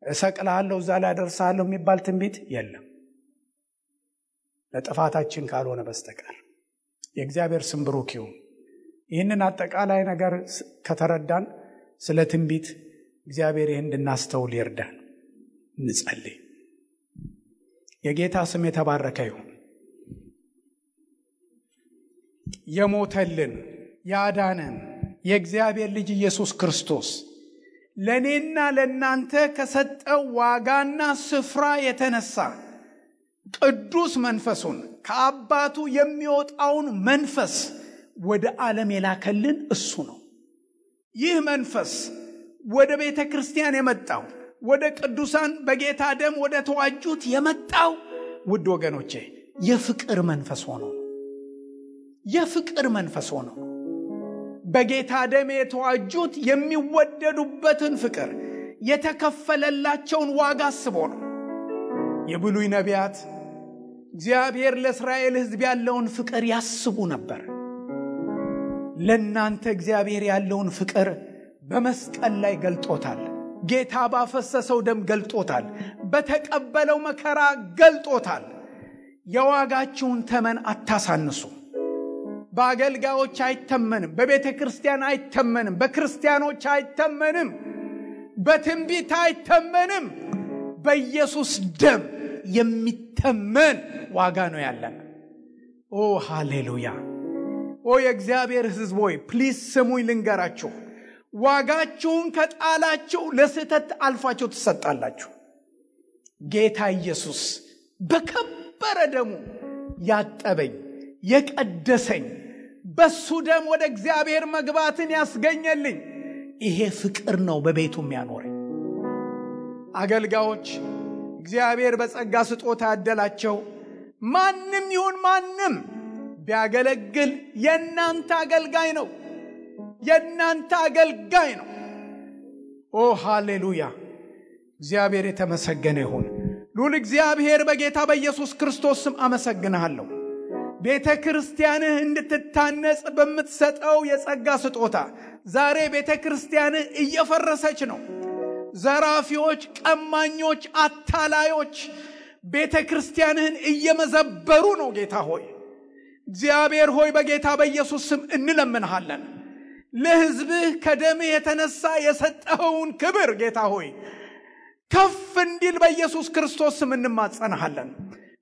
እሰቅልሃለሁ፣ እዛ ላይ አደርሳለሁ የሚባል ትንቢት የለም ለጥፋታችን ካልሆነ በስተቀር። የእግዚአብሔር ስም ብሩክ ይሁን። ይህንን አጠቃላይ ነገር ከተረዳን ስለ ትንቢት እግዚአብሔር ይህን እንድናስተውል ይርዳን። እንጸልይ። የጌታ ስም የተባረከ ይሁን። የሞተልን ያዳነን የእግዚአብሔር ልጅ ኢየሱስ ክርስቶስ ለኔና ለናንተ ከሰጠው ዋጋና ስፍራ የተነሳ ቅዱስ መንፈሱን ከአባቱ የሚወጣውን መንፈስ ወደ ዓለም የላከልን እሱ ነው። ይህ መንፈስ ወደ ቤተ ክርስቲያን የመጣው ወደ ቅዱሳን በጌታ ደም ወደ ተዋጁት የመጣው ውድ ወገኖቼ የፍቅር መንፈስ ሆኖ ነው። የፍቅር መንፈስ ሆኖ በጌታ ደም የተዋጁት የሚወደዱበትን ፍቅር የተከፈለላቸውን ዋጋ አስቦ ነው። የብሉይ ነቢያት እግዚአብሔር ለእስራኤል ሕዝብ ያለውን ፍቅር ያስቡ ነበር። ለእናንተ እግዚአብሔር ያለውን ፍቅር በመስቀል ላይ ገልጦታል። ጌታ ባፈሰሰው ደም ገልጦታል። በተቀበለው መከራ ገልጦታል። የዋጋችሁን ተመን አታሳንሱ። በአገልጋዮች አይተመንም፣ በቤተ ክርስቲያን አይተመንም፣ በክርስቲያኖች አይተመንም፣ በትንቢት አይተመንም። በኢየሱስ ደም የሚተመን ዋጋ ነው ያለን። ኦ ሃሌሉያ! ኦ የእግዚአብሔር ሕዝብ ሆይ ፕሊዝ ስሙኝ ልንገራችሁ። ዋጋችሁን ከጣላችሁ ለስህተት አልፋችሁ ትሰጣላችሁ። ጌታ ኢየሱስ በከበረ ደሙ ያጠበኝ የቀደሰኝ በሱ ደም ወደ እግዚአብሔር መግባትን ያስገኘልኝ ይሄ ፍቅር ነው በቤቱ የሚያኖረኝ። አገልጋዮች እግዚአብሔር በጸጋ ስጦታ ያደላቸው ማንም ይሁን ማንም ቢያገለግል የእናንተ አገልጋይ ነው። የእናንተ አገልጋይ ነው። ኦ ሃሌሉያ! እግዚአብሔር የተመሰገነ ይሁን። ሉል እግዚአብሔር በጌታ በኢየሱስ ክርስቶስ ስም አመሰግንሃለሁ። ቤተ ክርስቲያንህ እንድትታነጽ በምትሰጠው የጸጋ ስጦታ ዛሬ ቤተ ክርስቲያንህ እየፈረሰች ነው። ዘራፊዎች፣ ቀማኞች፣ አታላዮች ቤተ ክርስቲያንህን እየመዘበሩ ነው። ጌታ ሆይ እግዚአብሔር ሆይ በጌታ በኢየሱስ ስም እንለምንሃለን። ለሕዝብህ ከደምህ የተነሳ የሰጠኸውን ክብር ጌታ ሆይ ከፍ እንዲል በኢየሱስ ክርስቶስ ስም እንማጸንሃለን።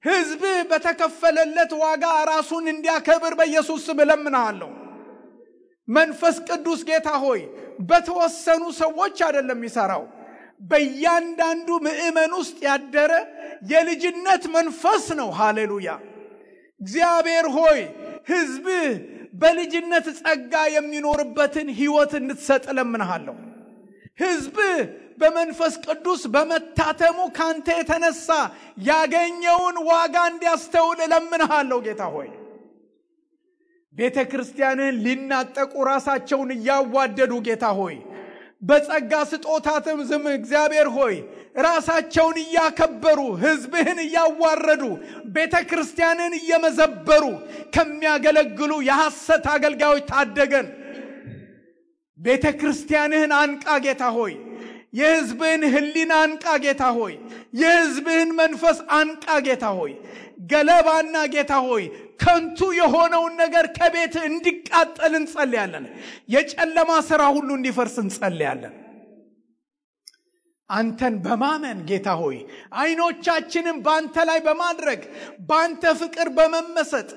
ሕዝብህ በተከፈለለት ዋጋ ራሱን እንዲያከብር በኢየሱስ ስም እለምንሃለሁ። መንፈስ ቅዱስ ጌታ ሆይ በተወሰኑ ሰዎች አይደለም ይሰራው፣ በእያንዳንዱ ምእመን ውስጥ ያደረ የልጅነት መንፈስ ነው። ሃሌሉያ! እግዚአብሔር ሆይ ሕዝብህ በልጅነት ጸጋ የሚኖርበትን ሕይወት እንድትሰጥ እለምንሃለሁ። ሕዝብህ በመንፈስ ቅዱስ በመታተሙ ካንተ የተነሳ ያገኘውን ዋጋ እንዲያስተውል እለምንሃለሁ። ጌታ ሆይ ቤተ ክርስቲያንን ሊናጠቁ ራሳቸውን እያዋደዱ ጌታ ሆይ በጸጋ ስጦታትም ዝም እግዚአብሔር ሆይ ራሳቸውን እያከበሩ ሕዝብህን እያዋረዱ ቤተ ክርስቲያንን እየመዘበሩ ከሚያገለግሉ የሐሰት አገልጋዮች ታደገን። ቤተ ክርስቲያንህን አንቃ ጌታ ሆይ የሕዝብህን ሕሊና አንቃ ጌታ ሆይ። የሕዝብህን መንፈስ አንቃ ጌታ ሆይ። ገለባና ጌታ ሆይ ከንቱ የሆነውን ነገር ከቤት እንዲቃጠል እንጸልያለን። የጨለማ ሥራ ሁሉ እንዲፈርስ እንጸልያለን። አንተን በማመን ጌታ ሆይ አይኖቻችንን ባንተ ላይ በማድረግ ባንተ ፍቅር በመመሰጥ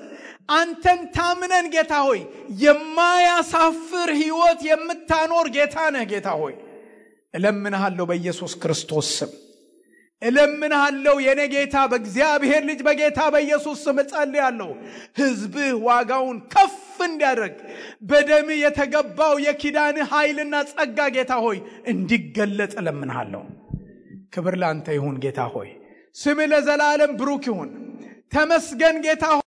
አንተን ታምነን ጌታ ሆይ የማያሳፍር ሕይወት የምታኖር ጌታ ነህ ጌታ ሆይ። እለምንሃለሁ በኢየሱስ ክርስቶስ ስም እለምንሃለሁ የኔ ጌታ በእግዚአብሔር ልጅ በጌታ በኢየሱስ ስም እጸልያለሁ። ሕዝብህ ዋጋውን ከፍ እንዲያደርግ በደም የተገባው የኪዳን ኃይልና ጸጋ ጌታ ሆይ እንዲገለጥ እለምንሃለሁ። ክብር ላንተ ይሁን ጌታ ሆይ። ስምህ ለዘላለም ብሩክ ይሁን። ተመስገን ጌታ ሆይ።